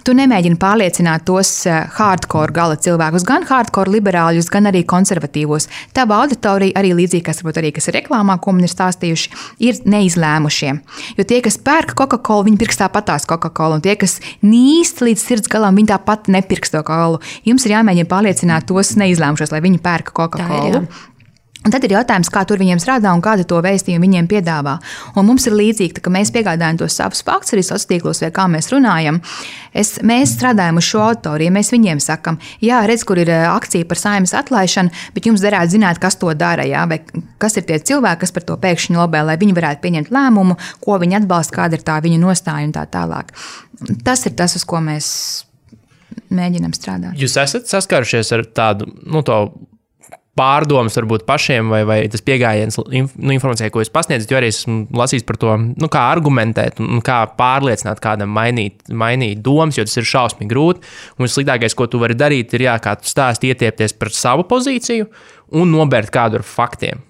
[SPEAKER 3] tu nemēģini pārliecināt tos hardcore gala cilvēkus, gan hardcore liberāļus, gan arī konservatīvos. Tava auditorija arī līdzīgi, kas ir reklāmā, ko man ir stāstījuši, ir neizlēmušie. Jo tie, kas pērk Coca-Cola, viņi pirks tāpatās Coca-Cola, un tie, kas nīst līdz sirds galam, viņi tāpat nepirks to Coca-Cola. Jums ir jāmēģina pārliecināt tos neizlēmušos, lai viņi pērka Coca-Cola. Un tad ir jautājums, kā tur viņiem strādā un kādu to vēstījumu viņiem piedāvā. Un mums ir līdzīgi, ka mēs piegādājam tos savus faktus arī sociālos tīklos, vai kā mēs runājam. Mēs strādājam uz šo autoriju, mēs viņiem sakam, jā, redz, kur ir akcija par Saeimas atlaišanu, bet jums derētu zināt, kas to dara, jā, vai kas ir tie cilvēki, kas par to pēkšņi lobē, lai viņi varētu pieņemt lēmumu, ko viņi atbalsta, kāda ir tā viņu nostāja un tā tālāk. Tas ir tas, uz ko mēs mēģinam strādāt.
[SPEAKER 1] Jūs esat saskārušies ar tādu, to pārdomas varbūt pašiem vai tas pieejams informācijai, ko jūs pasniedzat, jo arī esmu lasījis par to, kā argumentēt un kā pārliecināt kādam mainīt domas, jo tas ir šausmīgi grūti. Un sliktākais, ko tu vari darīt, ir, kā tu stāsti, ietiepties par savu pozīciju un nobērt kādu ar faktiem.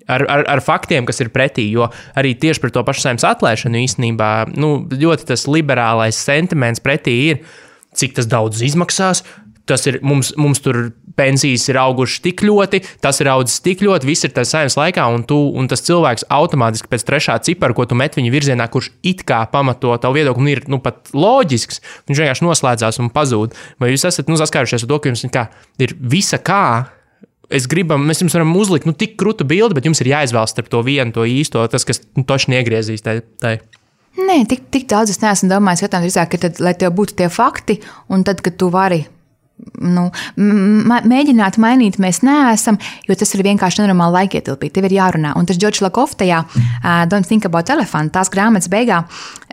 [SPEAKER 1] ar faktiem, kas ir pretī, jo arī tieši par to pašu Saeimas atlaišanu īstenībā, ļoti tas liberālais sentiments pretī ir, cik tas daudz izmaksās, tas ir, mums tur pensijas ir augušas tik ļoti, tas ir audzis tik ļoti, viss ir tas Saeimas laikā, un tas cilvēks automātiski pēc trešā cipara, ko tu met viņa virzienā, kurš it kā pamato tavu viedokli, un ir pat loģisks, viņš vienkārši noslēdzās un pazūd. Vai jūs esat saskārušies ar to, ka jums ir visa kā, mēs jums varam uzlikt tik krūtu bildi, bet jums ir jāizvēlas starp to vienu, to īsto, tas, kas toši niegriezīs tai.
[SPEAKER 3] Nē, tik daudz es neesmu domājis, ka tad, lai tev būtu tie fakti, un tad, kad tu vari mēģināt mainīt, mēs neesam, jo tas ir vienkārši nenormāli laikietilpīgi. Tev ir jārunā. Un tas George Lakoff tajā Don't Think About Elephant, tās grāmatas beigā,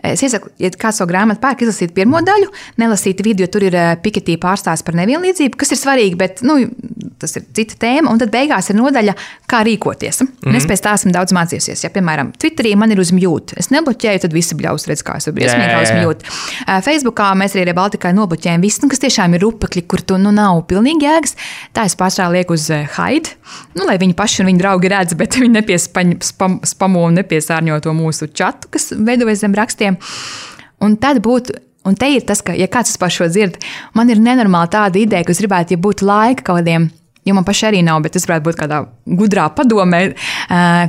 [SPEAKER 3] es iesaku, ja kāds savu grāmatu pērk, izlasīt pirmo daļu, nelasīt vidu, jo tur ir Piketī pārstāsts par nevienlīdzību, kas ir svarīgi, bet tas ir cita tēma, un tad beigās ir nodaļa, kā rīkoties. Un es pēc tā esmu daudz mācījusies. Ja, piemēram, Twitterī man ir uz mute. Es nebloķēju, tad visi bļaus redz, kā es briesmīgi uz mute. Facebookā mēs arī Baltikai nobloķējam visu, kas tiešām ir rupekļi, kur tu nav pilnīgi jēgas. Tā es pārstrāju lieku uz hide, lai viņi paši un viņi draugi redz, bet viņi nepiespamo un nepiesārņo to mūsu čatu, kas veidojas zem rakstiem. Un tad būtu, un te ir tas, ka, ja kāds par šo dzird, man ir nenormāli tāda ideja, ka es gribētu, ja būtu laika kaut kādiem, jo man paši arī nav, bet es varētu būt kādā gudrā padomē,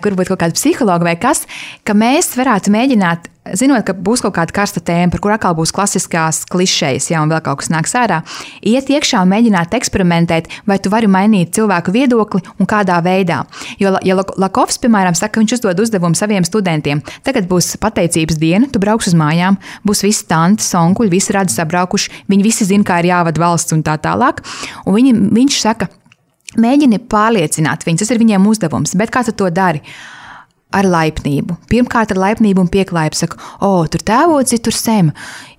[SPEAKER 3] kur būtu kaut kāda psihologa vai kas, ka mēs varētu mēģināt, zinot, ka būs kaut kāda karsta tēma, par kur atkal būs klasiskās klišejas, ja un vēl kaut kas nāks ārā, iet iekšā un mēģināt eksperimentēt, vai tu vari mainīt cilvēku viedokli un kādā veidā. Jo, ja Lakoffs, piemēram, saka, ka viņš uzdod uzdevumu saviem studentiem, tagad būs pateicības diena, tu brauks uz mājām, būs visi tantes, onkuļi, visi radi sabraukuši, viņi visi zina, kā ir jāvada valsts un tā tālāk, un viņš saka, mēģini pārliecināt viņus, tas ir viņiem uzdevums, bet kā tu to dari? Ar laipnību. Pirmkārt ar laipnību un pieklājību saka, tur tēvoci, tur Sem.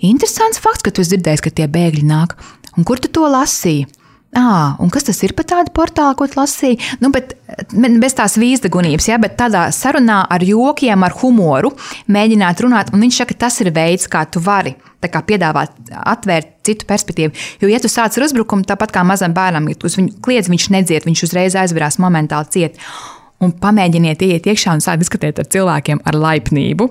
[SPEAKER 3] Interesants fakts, ka tu esi dzirdējis, ka tie bēgļi nāk. Un kur tu to lasīji? Un kas tas ir par tādu portālu, ko tu lasīji? Bet bez tās vīzdagunības, bet tādā sarunā ar jokiem, ar humoru mēģināt runāt, un viņš saka, tas ir veids, kā tu vari tā kā piedāvāt, atvērt citu perspektīvu. Jo, ja tu sāc ar uzbrukumu, tāpat kā mazam bērnam, ja tu uz viņu kliedz, viņš nedzied, viņš uzreiz aizverās momentāli ciet. Un pamēģiniet iet iekšā un sākt diskutēt ar cilvēkiem ar laipnību.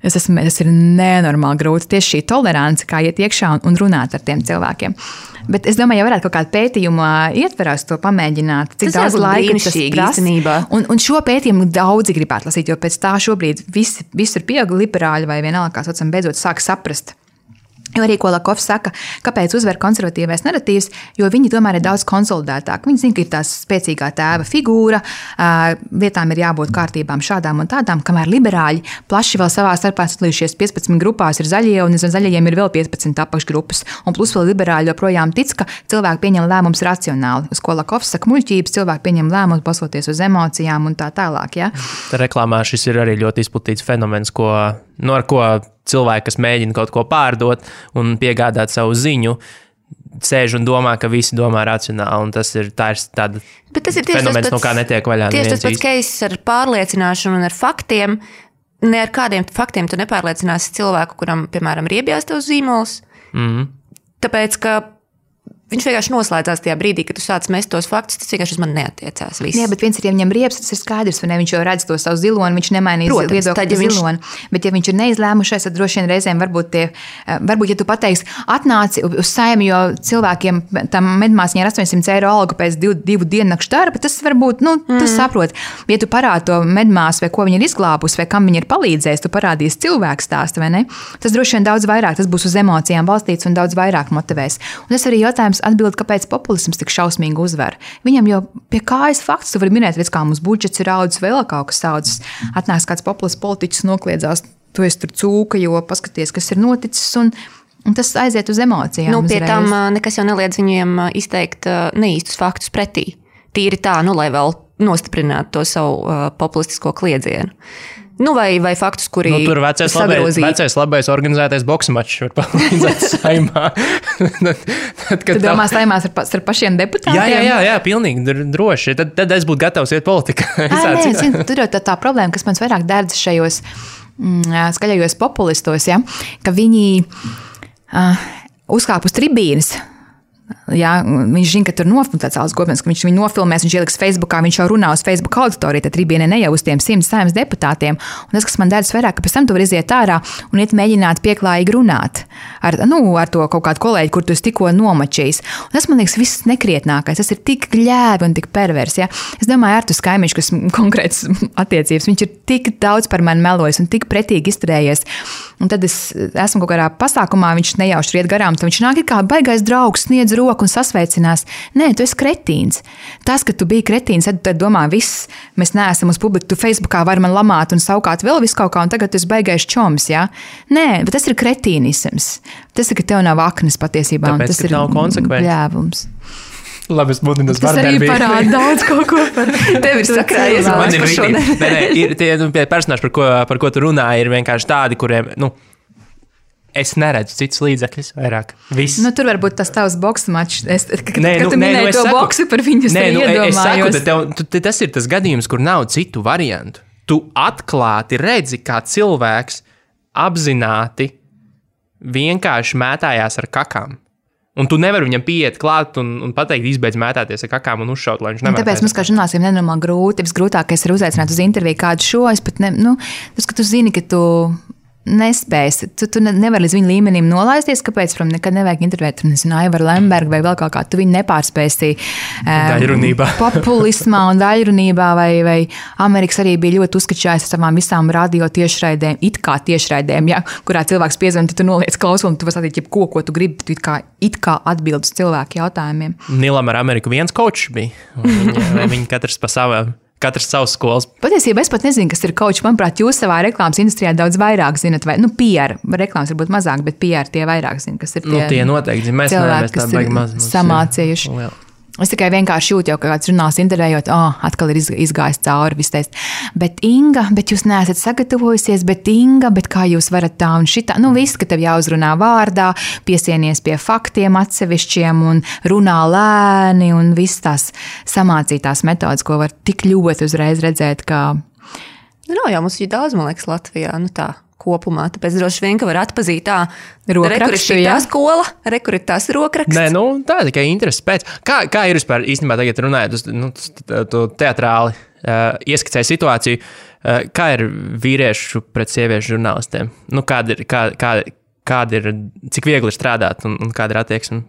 [SPEAKER 3] Tas ir nenormāli grūti. Tieši šī tolerance, kā iet iekšā un runāt ar tiem cilvēkiem. Bet es domāju, ja varētu kaut kādu pētījumu ietverās to pamēģināt, cik daudz laika tas prasa. Un šo pētījumu daudzi gribētu lasīt, jo pēc tā šobrīd visur pieauga liberāļi vai vienalga, kā saucam, beidzot sāk saprast. Jo arī, ko Lakoffs saka, kāpēc uzvar konservatīvais naratīvs, jo viņi tomēr ir daudz konsolidētāki. Viņi zina, ka ir tās spēcīgā tēva figūra, vietām ir jābūt kārtībām šādām un tādām, kamēr liberāļi plaši vēl savā starpā sadalījušies 15 grupās ir zaļie, un zaļajiem ir vēl 15 apakšgrupas. Un plus vēl liberāļi joprojām tic, ka cilvēki pieņem lēmumus racionāli. Uz ko Lakoffs saka, muļķības, cilvēki pieņem lēmumus balstoties uz emocijām un tā tālāk. Ja?
[SPEAKER 1] Reklāmā šis ir arī ļoti izplatīts fenomens, ar ko cilvēki, kas mēģina kaut ko pārdot un piegādāt savu ziņu, sēž un domā, ka visi domā racionāli, un tas ir tāda fenomens, no kā netiek vaļā.
[SPEAKER 2] Tieši tas pats case ar pārliecināšanu un ar faktiem. Ne ar kādiem faktiem tu nepārliecināsi cilvēku, kuram, piemēram, ir iebjās tavs zīmols. Tāpēc, ka viņš vienkārši noslēdzās tajā brīdī, kad tu sāc mest tos faktus, tas vienkārši uz mani neatiecās. Viss.
[SPEAKER 3] Jā, bet viens ir, ja viņam riepas, tas ir skaidrs, vai ne? Viņš jau redz to savu ziloni, viņš nemainīs viedokli par ziloni. Bet ja viņš ir neizlēmušais, tad droši vien reizēm varbūt, ja tu pateiksi, atnāci uz Saeimu, jo cilvēkiem tam medmāsiņai ir 800 eiro alga pēc 2 diennakšu darba, tas varbūt, tu saproti. Ja tu parādi to medmāsu, vai ko viņa ir izglābusi, vai kam viņa ir palīdzējis, tu parādīsi cilvēku stāstu, vai ne? Tas droši vien daudz vairāk, tas būs uz emocijām balstīts un daudz vairāk motivēs. Un tas arī jautājums atbild, kāpēc populisms tik šausmīgi uzvar. Viņam jau pie kājas fakts, tu vari minēt, kā mums budžets ir audzis, vēl kaut kas audzis. Atnāks kāds populists politiķis nokliedzās, tu esi tur cūka, jo paskaties, kas ir noticis, un tas aiziet uz emocijām.
[SPEAKER 2] Pie tam nekas jau neliedz viņiem izteikt neīstus faktus pretī. Tīri tā, lai vēl nostiprinātu to savu populistisko kliedzienu. Vai faktus, kuri
[SPEAKER 1] tur vecais labais organizētais boksa mačs var palīdzēt Saeimā.
[SPEAKER 3] Tu domā Saeimās ar pašiem deputātiem?
[SPEAKER 1] Jā, pilnīgi droši. Tad es būtu gatavs iet politikā.
[SPEAKER 3] Tur jau tā problēma, kas man vairāk dērdz šajos skaļajos populistos, ja, ka viņi uzkāp uz tribīnes, Jā, viņš zina, ka tur tāds alus gobens, ka viņš viņu nofilmēs, viņš ieliks Facebookā, viņš jau runā uz Facebook auditoriju, tad Tribīne ne jau uz tiem 100 saimnes deputātiem. Un tas, kas man dēļas vairāk, ka pēc tam tu vari iziet ārā un iet mēģināt pieklājīgi runāt ar to kaut kādu kolēģi, kur tu esi tikko nomačījis. Un tas, man liekas, viss nekrietnākais. Tas ir tik gļēvi un tik pervers. Ja? Es domāju, Artus Kaimiņš, kas konkrēts attiecības, viņš ir tik daudz par mani melojis un tik pretīgi izturējies. Un tad es esmu kaut kādā pasākumā, viņš nejauši iet garām, tad viņš nāk kā baigais draugs, sniedz roku un sasveicinās. Nē, tu esi kretīns. Tas, ka tu biji kretīns, tad domā, viss, mēs neesam uz publiku, tu Facebookā vari man lamāt un saukāt vēl visu kaut kā, un tagad tu esi baigais čoms, ja? Nē, bet tas ir kretīnisms. Tas ir, ka tev nav aknes patiesībā.
[SPEAKER 1] Tāpēc,
[SPEAKER 3] tas ir
[SPEAKER 1] nav konsekvenci.
[SPEAKER 3] Bļēvums.
[SPEAKER 1] Labi, es mudinu uz
[SPEAKER 3] vardarbību. Tas arī parāda daudz kaut ko par
[SPEAKER 2] tevi ir sakrājies.
[SPEAKER 1] Man ir ir tie personāži, par ko tu runā, ir vienkārši tādi, kuriem, es neredzu citus līdzekļus vairāk. Viss.
[SPEAKER 3] Tur varbūt tas tavs boksa mačs. Kad tu minēji to boksu par viņu, es iedomājos.
[SPEAKER 1] Es saku, ka tas ir tas gadījums, kur nav citu variantu. Tu atklāti redzi, kā cilvēks apzināti vienkārši mētājās ar kakām. Un tu nevari viņam pieiet klāt un pateikt, izbeidz mētāties ar kakām un uzšaut, lai viņš nemētājas.
[SPEAKER 3] Tāpēc mums, kā žurnālistiem, nenormāli grūti. Visgrūtākais ir uzaicināt uz interviju kādu šo. Es pat tas, ka tu zini, ka tu nespēsi. Tu nevari līdz viņa līmenim nolaisties, kāpēc nekad nevajag intervēt, nezinu, Aivaru Lembergu vai vēl kaut kā. Tu viņu nepārspēsi populismā un daļrunībā, vai Amerikas arī bija ļoti uzskačājis ar savām visām radio tiešraidēm, it kā tiešraidēm, ja, kurā cilvēks piezvan, tu noliec klausuli, tu vari satīt jebko, ko tu gribi, tu it kā atbild uz cilvēku jautājumiem.
[SPEAKER 1] Nilam ar Ameriku viens kočs bija. Viņi katrs pa savām. Katrs savs skolas.
[SPEAKER 3] Patiesībā es pat nezinu, kas ir coach. Manuprāt, jūs savā reklāmas industrijā daudz vairāk zinat, vai PR. Reklāmas varbūt mazāk, bet PR tie vairāk zina, kas ir tie.
[SPEAKER 1] Tie noteikti zina. Mēs
[SPEAKER 3] cilvēki, kas ir samācījuši. Es tikai vienkārši jūtu, jau kāds žurnāls intervējot, atkal ir izgājis cauri viss. Bet Inga, bet jūs neesat sagatavojusies, bet Inga, bet kā jūs varat tā un šitā. Viss, ka tev jāuzrunā vārdā, piesienies pie faktiem atsevišķiem un runā lēni un viss tās samācītās metodas, ko var tik ļoti uzreiz redzēt, kā...
[SPEAKER 2] Nav jau mums ir daudz, man liekas, Latvijā, tā. Kopumā, tāpēc droši vien, ka var atpazīt
[SPEAKER 3] rokrakstu,
[SPEAKER 2] tā skola, tās rokraksts.
[SPEAKER 1] Nē, tā tikai interesi pēc. Kā ir vispār īstenībā tagad runājot, tu teatrāli ieskicēji situāciju, kā ir vīriešu pret sieviešu žurnālistiem? Kāda ir, cik viegli ir strādāt un kāda ir attieksme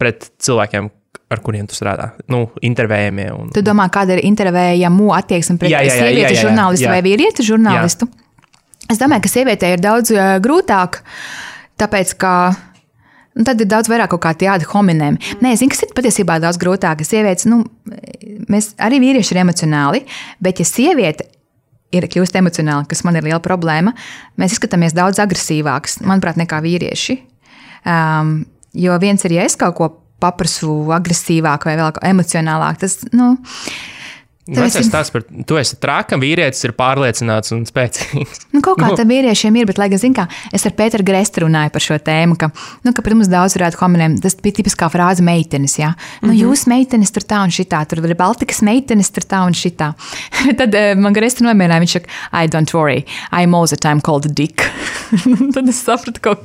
[SPEAKER 1] pret cilvēkiem, ar kuriem tu strādā? Intervējamie.
[SPEAKER 3] Tu domā, kāda ir intervējamu attieksme pret sievieti žurnālistu vai vīrieti žurnālistu? Jā. Es domāju, ka sievietē ir daudz grūtāk, tāpēc, ka tad ir daudz vairāk kaut kā tādi hominem. Nē, es zinu, kas ir patiesībā daudz grūtāk. Sievietes, mēs arī vīrieši ir emocionāli, bet ja sieviete ir kļūst emocionāli, kas man ir liela problēma, mēs izskatāmies daudz agresīvāks, manuprāt, nekā vīrieši. Jo viens ir, ja es kaut ko paprasu agresīvāk vai vēl emocionālāk, tas,
[SPEAKER 1] Vecais stāsts par to, esi trākam, vīrietis ir pārliecināts un spēcīgs.
[SPEAKER 3] Kaut kā tā vīriešiem ir, bet, lai gan, zin kā, es ar Pēteru Grestu runāju par šo tēmu, ka pret mums daudz varētu hominiem, tas bija tipiskā frāze meitenes, jā. Jūs meitenes tur tā un šitā, tur ir Baltikas meitenes tur tā un šitā. Tad man Grestu nomierināja, viņš saka, I don't worry, I'm all the time called a dick. Tad es sapratu, ka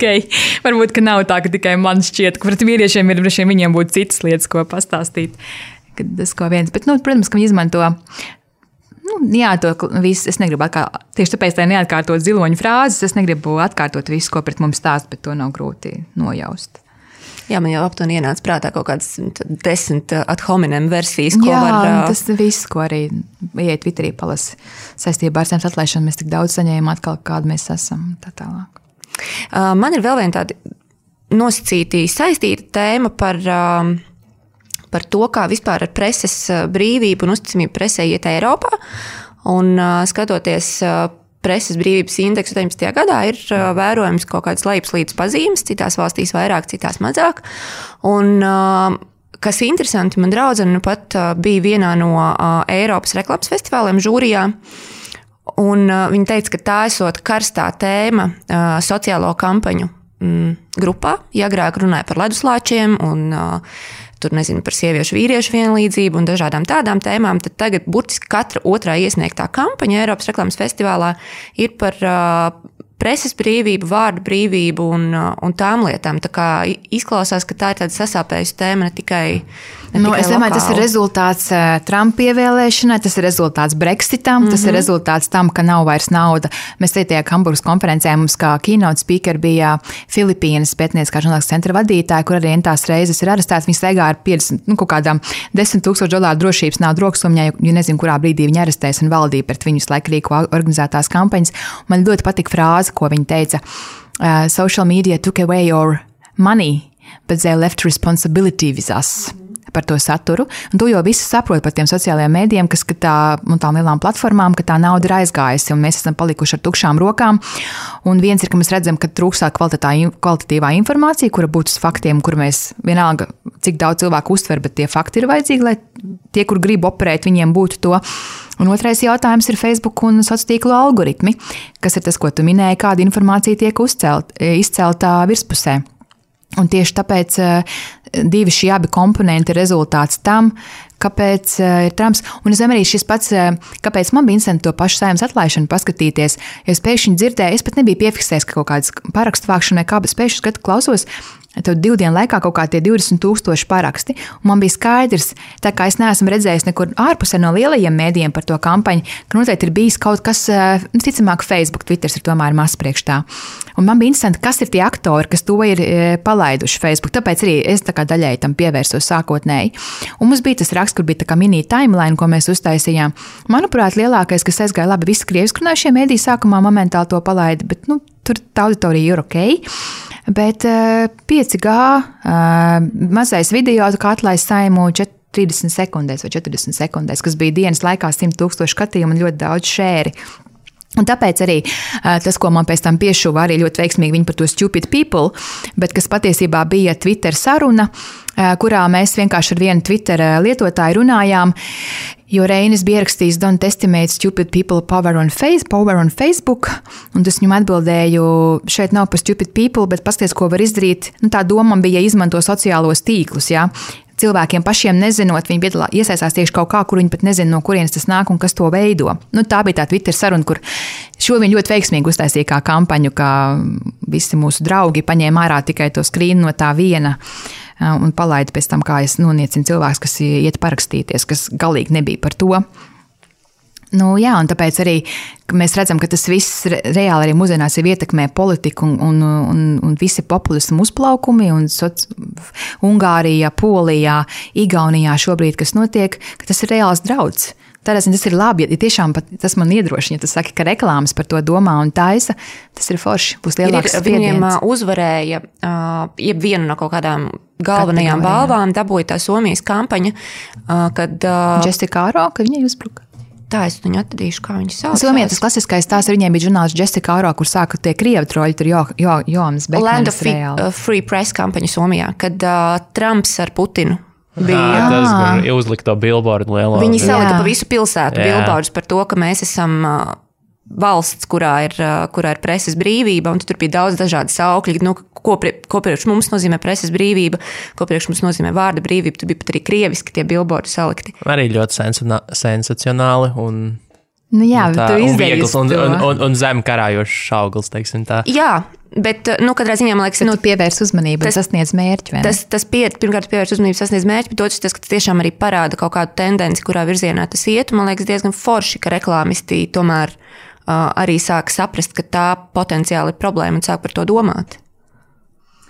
[SPEAKER 3] varbūt, ka nav tā, ka tikai man šķiet, ka pret vīriešiem ir, viņiem būtu citas lietas, ko pastāstīt. Tas ko viens, bet, protams, ka viņi izmanto, to visu, es negribu tieši tāpēc, lai neatkārtot ziloņu frāzes, es negribu atkārtot visu, ko pret mums stāst, bet to nav grūti nojaust.
[SPEAKER 2] Jā, man jau aptuveni ienāca prātā kaut kādas 10 ad hominem versijas, ko var...
[SPEAKER 3] Jā, tas viss, ko arī iet Twitterī palasi saistībā ar zemes atlaišanu, mēs tik daudz saņēmām atkal, kādu mēs esam, tā tālāk.
[SPEAKER 2] Man ir vēl viena tāda nosacītī saistīta tēma par to, kā vispār ar preses brīvību un uzticamību presē iet Eiropā. Un skatoties preses brīvības indeksu 17. gadā, ir vērojams kaut kādas lejupslīdes pazīmes, citās valstīs vairāk, citās mazāk. Un kas interesanti, man draudzene pat bija vienā no Eiropas reklāmas festivāliem žūrijā, un viņa teica, ka tā esot karstā tēma sociālo kampaņu grupā. Ja agrāk runāja par leduslāčiem un tur, nezinu, par sieviešu vīriešu vienlīdzību un dažādām tādām tēmām, tad tagad burtiski katra otrā iesniegtā kampaņa Eiropas reklāmas festivālā ir par preses brīvību, vārdu brīvību un tām lietām. Tā kā izklausās, ka tā ir tāda sasāpējusi tēma ne tikai
[SPEAKER 3] es domāju, tas ir rezultāts Trumpa ievēlēšanai, tas ir rezultāts Brexitam, tas ir rezultāts tam, ka nav vairs nauda. Mēs tajā Hamburgas konferencē mums kā keynote speaker bija Filipīnas pētnieciskā žurnālistiskā centra vadītāja, kur arī tās reizes ir arestēts. Viņa staigā ar 50, kaut kādām $10,000 drošības naudu roksumā, jo nezinu, kurā brīdī viņa arestēs un valdīja pret viņus laiku rīko organizētās kampaņas. Man ļoti patika frāze, ko viņa teica: social media took away your money, but they left responsibility with us. Par to saturu. Un tu jau visi saproti par tiem sociālajiem mēdījiem, kas un tām lielām platformām, ka tā nauda ir aizgājusi un mēs esam palikuši ar tukšām rokām. Un viens ir, ka mēs redzam, ka trūkstā kvalitatīvā informācija, kura būtu uz faktiem, kur mēs vienalga, cik daudz cilvēku uztver, bet tie fakti ir vajadzīgi, lai tie, kur grib operēt, viņiem būtu to. Un otrais jautājums ir Facebook un sociālo tīklu algoritmi, kas ir tas, ko tu minēji, kāda informācija tiek izceltā virspusē. Un tieši tāpēc divi šie abi komponenti ir rezultāts tam, kāpēc ir Trumps. Un es domāju, arī šis pats, kāpēc man bija interesanti to pašu Saeimas atlaišanu paskatīties. Ja es pēkšņi dzirdēju, es pat nebiju piefiksējis, ka kaut kādas parakstu vākšana vai kā, bet pēkšņi skatu klausos, tad 2 dienu laikā kaut kā tie 20,000 paraksti. Un man bija skaidrs, tā kā es neesmu redzējis nekur ārpusē no lielajiem mēdījiem par to kampaņu, ka noteikti ir bijis kaut kas, ticamāk, Facebook, Twitter ir tomēr maz priekš tā. Un man bija interesanti, kas ir tie aktori, kas to ir palaiduši Facebook. Tāpēc arī es tā kā daļēji tam pievērsos sākotnēji. Un mums bija tas raksts, kur bija tā kā mini timeline, ko mēs uztaisījām. Manuprāt, lielākais, kas aizgāja labi, visi krievisku runājušie mēdīji sākumā momentāli to palaida, bet tur tā auditorija ir ok. Bet 5G mazais video, kā atlaist Saimu 30 sekundēs vai 40 sekundēs, kas bija dienas laikā 100,000 skatījumu un ļoti daudz šēri. Un tāpēc arī tas, ko man pēc tam piešuva arī ļoti veiksmīgi viņi par to stupid people, bet kas patiesībā bija Twitter saruna, kurā mēs vienkārši ar vienu Twitter lietotāju runājām, jo Reinis bija ierakstījis Don't estimate stupid people power on Facebook, un tas viņam atbildēju, šeit nav par stupid people, bet pasties, ko var izdarīt. Tā doma bija izmanto sociālos tīklus, jā. Cilvēkiem pašiem nezinot, viņi iesaistās tieši kaut kā, kur viņi pat nezina, no kurienes tas nāk un kas to veido. Tā bija tā Twitter saruna, kur šo viņi ļoti veiksmīgi uztaisīja kā kampaņu, ka visi mūsu draugi paņēma ārā tikai to skrīnu no tā viena un palaida pēc tam, kā es noniecinu cilvēks, kas iet parakstīties, kas galīgi nebija par to. Jā, un tāpēc arī mēs redzam, ka tas viss reāli arī mūsdienās ietekmē politiku un visi populismu uzplaukumi un Ungārijā, Polijā, Igaunijā šobrīd, kas notiek, ka tas ir reāls drauds. Tādēļ tas ir labi, ja tiešām tas man iedrošina, ja tu saki, ka reklāmas par to domā un taisa, tas ir forši, būs lielāks spiediens.
[SPEAKER 2] Viņiem uzvarēja vienu no kaut kādām galvenajām balvām, dabūja tā Somijas kampaņa, kad
[SPEAKER 3] Jessica Aro, ka viņai uzbruka.
[SPEAKER 2] Tā es viņu atradīšu, kā viņi sauc.
[SPEAKER 3] Somijā tas klasiskais tās ar viņiem bija žurnālists Jessica Aro, kur sāka tie krievi troļi, tur Jonas Bekmanis
[SPEAKER 2] Land of Free Press kampaņa Somijā, kad Trumps ar Putinu bija.
[SPEAKER 1] Tas, kur uzlika to billboardu lielo.
[SPEAKER 2] Viņi salika pa visu pilsētu billboardus par to, ka mēs esam valsts, kurā ir preses brīvība, un tur bija daudz dažādi saukļi, ko priekš mums nozīmē preses brīvība, ko priekš mums nozīmē vārda brīvība, tur bija pat arī krieviski tie billboardi salikti.
[SPEAKER 1] Arī ļoti sensacionāli un
[SPEAKER 3] tu
[SPEAKER 1] izdejies un zem karājošs auglis, teiksim tā.
[SPEAKER 2] Jā, bet, katrā ziņā, man liekas,
[SPEAKER 3] pievērs uzmanību un sasniedz mērķi, vai ne?
[SPEAKER 2] Pirmkārt, pievērs uzmanību, sasniedz mērķi, bet otrs tas, ka tas tiešām arī parāda kaut kādu tendenci, kurā virzienā tas iet, un man liekas diezgan forši, ka reklāmisti tomēr arī sāk saprast, ka tā potenciāli ir problēma un sāk par to domāt.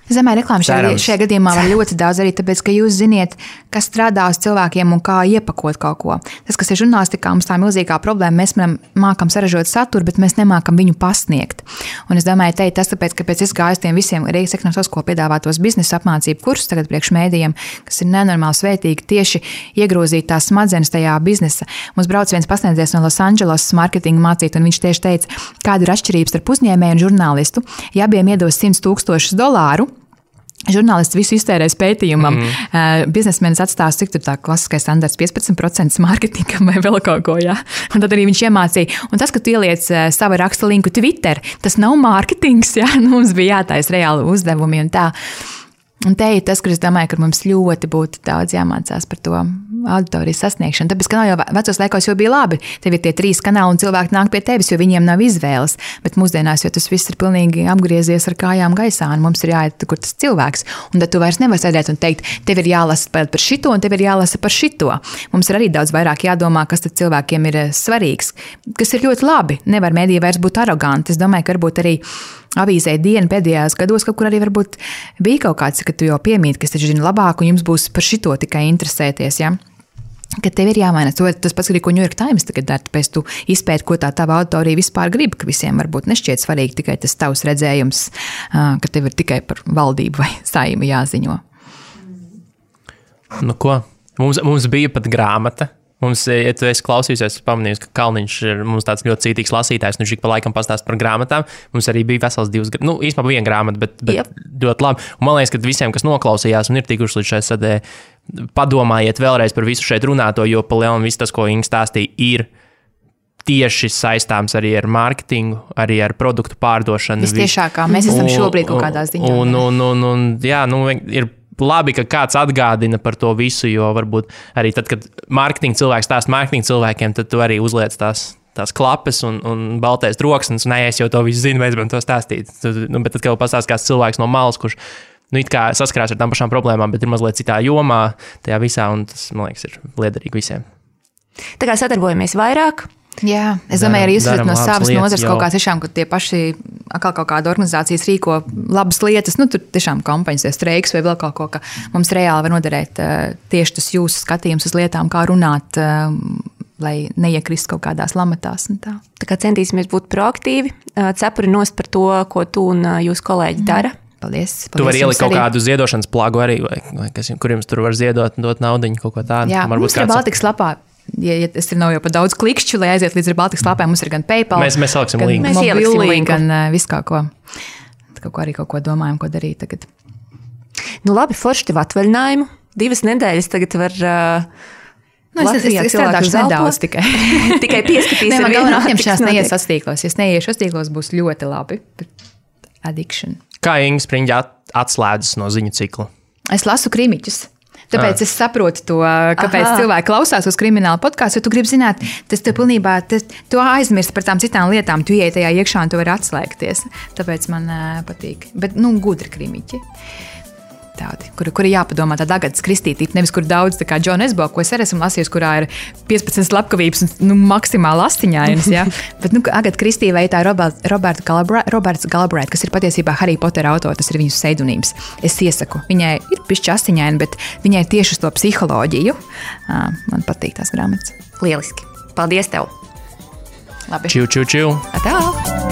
[SPEAKER 3] Es domāju, reklāma šajā gadījumā var ļoti daudz arī, tāpēc, ka jūs ziniet, kas strādā uz cilvēkiem un kā iepakot kaut ko. Tas, kas ir žurnālistikā, mums tā milzīgā problēma, mēs mākam saražot saturu, bet mēs nemākam viņu pasniegt. Un es domāju, tas tāpēc, ka pēc es gāju tiem visiem Rīgas ekonomikas skolas piedāvātos biznesa apmācību kursus tagad priekš mēdījiem, kas ir nenormāli svētīgi tieši iegrozīt tās smadzenes tajā biznesa. Mums brauc viens pasniedzējs no Los Angeles marketinga mācīt, un viņš tieši teica, kāda ir atšķirības starp uzņēmēju un žurnālistu. Ja abiem iedos $100,000, žurnālists visu iztērēs pētījumam, biznesmenis atstās, cik tur tā klasiskais standarts 15% mārketingam vai vēl kaut ko, jā. Un tad arī viņš iemācīja. Un tas, ka tu ieliec savu raksta linku Twitter, tas nav mārketings, jā. Mums bija jātais reāli uzdevumi un tā. Un te ir tas, kur es domāju, ka mums ļoti būtu daudz jāmācās par to auditorijas sasniegšanu. Tāpēc, ka nav jau vecos laikos jau bija labi. Tev ir tie 3 kanāli un cilvēki nāk pie tevis, jo viņiem nav izvēles. Bet mūsdienās, jo tas viss ir pilnīgi apgriezies ar kājām gaisā, un mums ir jāiet, kur tas cilvēks. Un tad tu vairs nevari sēdēt un teikt, tev ir jālasa par šito, un tev ir jālasa par šito. Mums ir arī daudz vairāk jādomā, kas tad cilvēkiem ir svarīgs, kas ir ļoti labi. Nevar mēdī vairs būt aroganti. Es domāju, ka varbūt arī avīzē diena pēdējās gados, kaut kur arī varbūt bija kaut kāds, ka tu jau piemīti, kas taču zina labāk, un jums būs par šito tikai interesēties, ja? Ka tev ir jāmaina. Tas pats arī, ko New York Times tagad dara, tāpēc tu izpēti, ko tā tava auditorija vispār grib, ka visiem varbūt nešķiet svarīgi tikai tas tavs redzējums, ka tev ir tikai par valdību vai saimu jāziņo.
[SPEAKER 1] Nu ko, mums bija pat grāmata. Mums, ja tu esi klausījusies, pamanījusi, ka Kalniņš ir mums tāds ļoti cītīgs lasītājs, un viņš ik pa laikam pastāst par grāmatām. Mums arī bija vesels 2, īstenībā 1 grāmata, bet ļoti labi. Un man liekas, ka visiem, kas noklausījās un ir tikuši līdz šai sadē, padomājiet vēlreiz par visu šeit runāto, jo pa lielam viss tas, ko Inga stāstīja, ir tieši saistāms arī ar mārketingu, arī ar produktu pārdošanu.
[SPEAKER 3] Vistiešākā, mēs esam šobrīd kaut kādā ziņā.
[SPEAKER 1] Ir labi, ka kāds atgādina par to visu, jo varbūt arī tad, kad mārketinga cilvēks stāsta mārketinga cilvēkiem, tad tu arī uzliec tās klapes un baltais troksnis, un es jau to visu zinu, vajadz man to stāstīt. Bet tad, kad pastāst kāds cilvēks no malas, kurš it kā saskarās ar tām pašām problēmām, bet ir mazliet citā jomā tajā visā, un tas, man liekas, ir liederīgi visiem.
[SPEAKER 2] Tā kā sadarbojamies vairāk.
[SPEAKER 3] Jā, es domāju, arī jūs esat no savas nozares kaut kā tiešām, ka tie paši atkal kaut kāda organizācijas rīko labas lietas, tur tiešām kampaņas, streiks vai vēl kaut ko, ka mums reāli var noderēt tieši tas jūsu skatījums uz lietām, kā runāt, lai neiekrist kaut kādās lamatās un tā.
[SPEAKER 2] Tā kā centīsimies būt proaktīvi, cepuri nost par to, ko tu un jūsu kolēģi dara.
[SPEAKER 3] Paldies.
[SPEAKER 1] Tu vari ielikt kaut kādu ziedošanas plagu arī, vai kur jums tur var ziedot un dot naudiņu, kaut ko tādu.
[SPEAKER 3] Jā, mums ir Baltikas lapā. Ja tas nav jau pa daudz klikšķu, lai aiziet līdz Baltikas lapām, mums ir gan PayPal,
[SPEAKER 1] mēs saliksim linku.
[SPEAKER 2] Mēs ieliksim linku.
[SPEAKER 3] Gan visu kaut ko. Arī kaut ko domājam, ko darīt tagad.
[SPEAKER 2] Nu labi, forši tev atvaļinājumu. 2 nedēļas tagad var
[SPEAKER 3] es strādāšu nedaudz tikai.
[SPEAKER 2] Tikai pieskatīsim.
[SPEAKER 3] Man galvenā apņemšanās neies sastīklos. Ja es neiešu sastīklos, būs ļoti labi. Addiction.
[SPEAKER 1] Kā Inga Spriņģa atslēdzas no ziņu cikla?
[SPEAKER 3] Es lasu krimiķus. Tāpēc es saprotu to, kāpēc cilvēki klausās uz kriminālu podkāstu, jo tu gribi zināt, tas tev pilnībā, tu aizmirsti par tām citām lietām, tu ieiet tajā iekšā un tu vari atslēgties. Tāpēc man patīk. Bet, gudri krimiķi. Tādi, kuri jāpadomā tāda Agatas Kristītība, nevis kur daudz, tā kā Džona Esbo, ko es arī esmu lasījusi, kurā ir 15 slepkavības, maksimāli astiņainas, ja? Bet, Agata Kristīte vai tā Roberts Galbraith, kas ir patiesībā Harry Potter autors, tas ir viņas pseidonīms. Es iesaku, viņai ir pišķi astiņaini, bet viņai tieši uz to psiholoģiju. Man patīk tās grāmatas.
[SPEAKER 2] Lieliski. Paldies tev.
[SPEAKER 3] Labi.
[SPEAKER 1] Čiu.
[SPEAKER 3] Tā.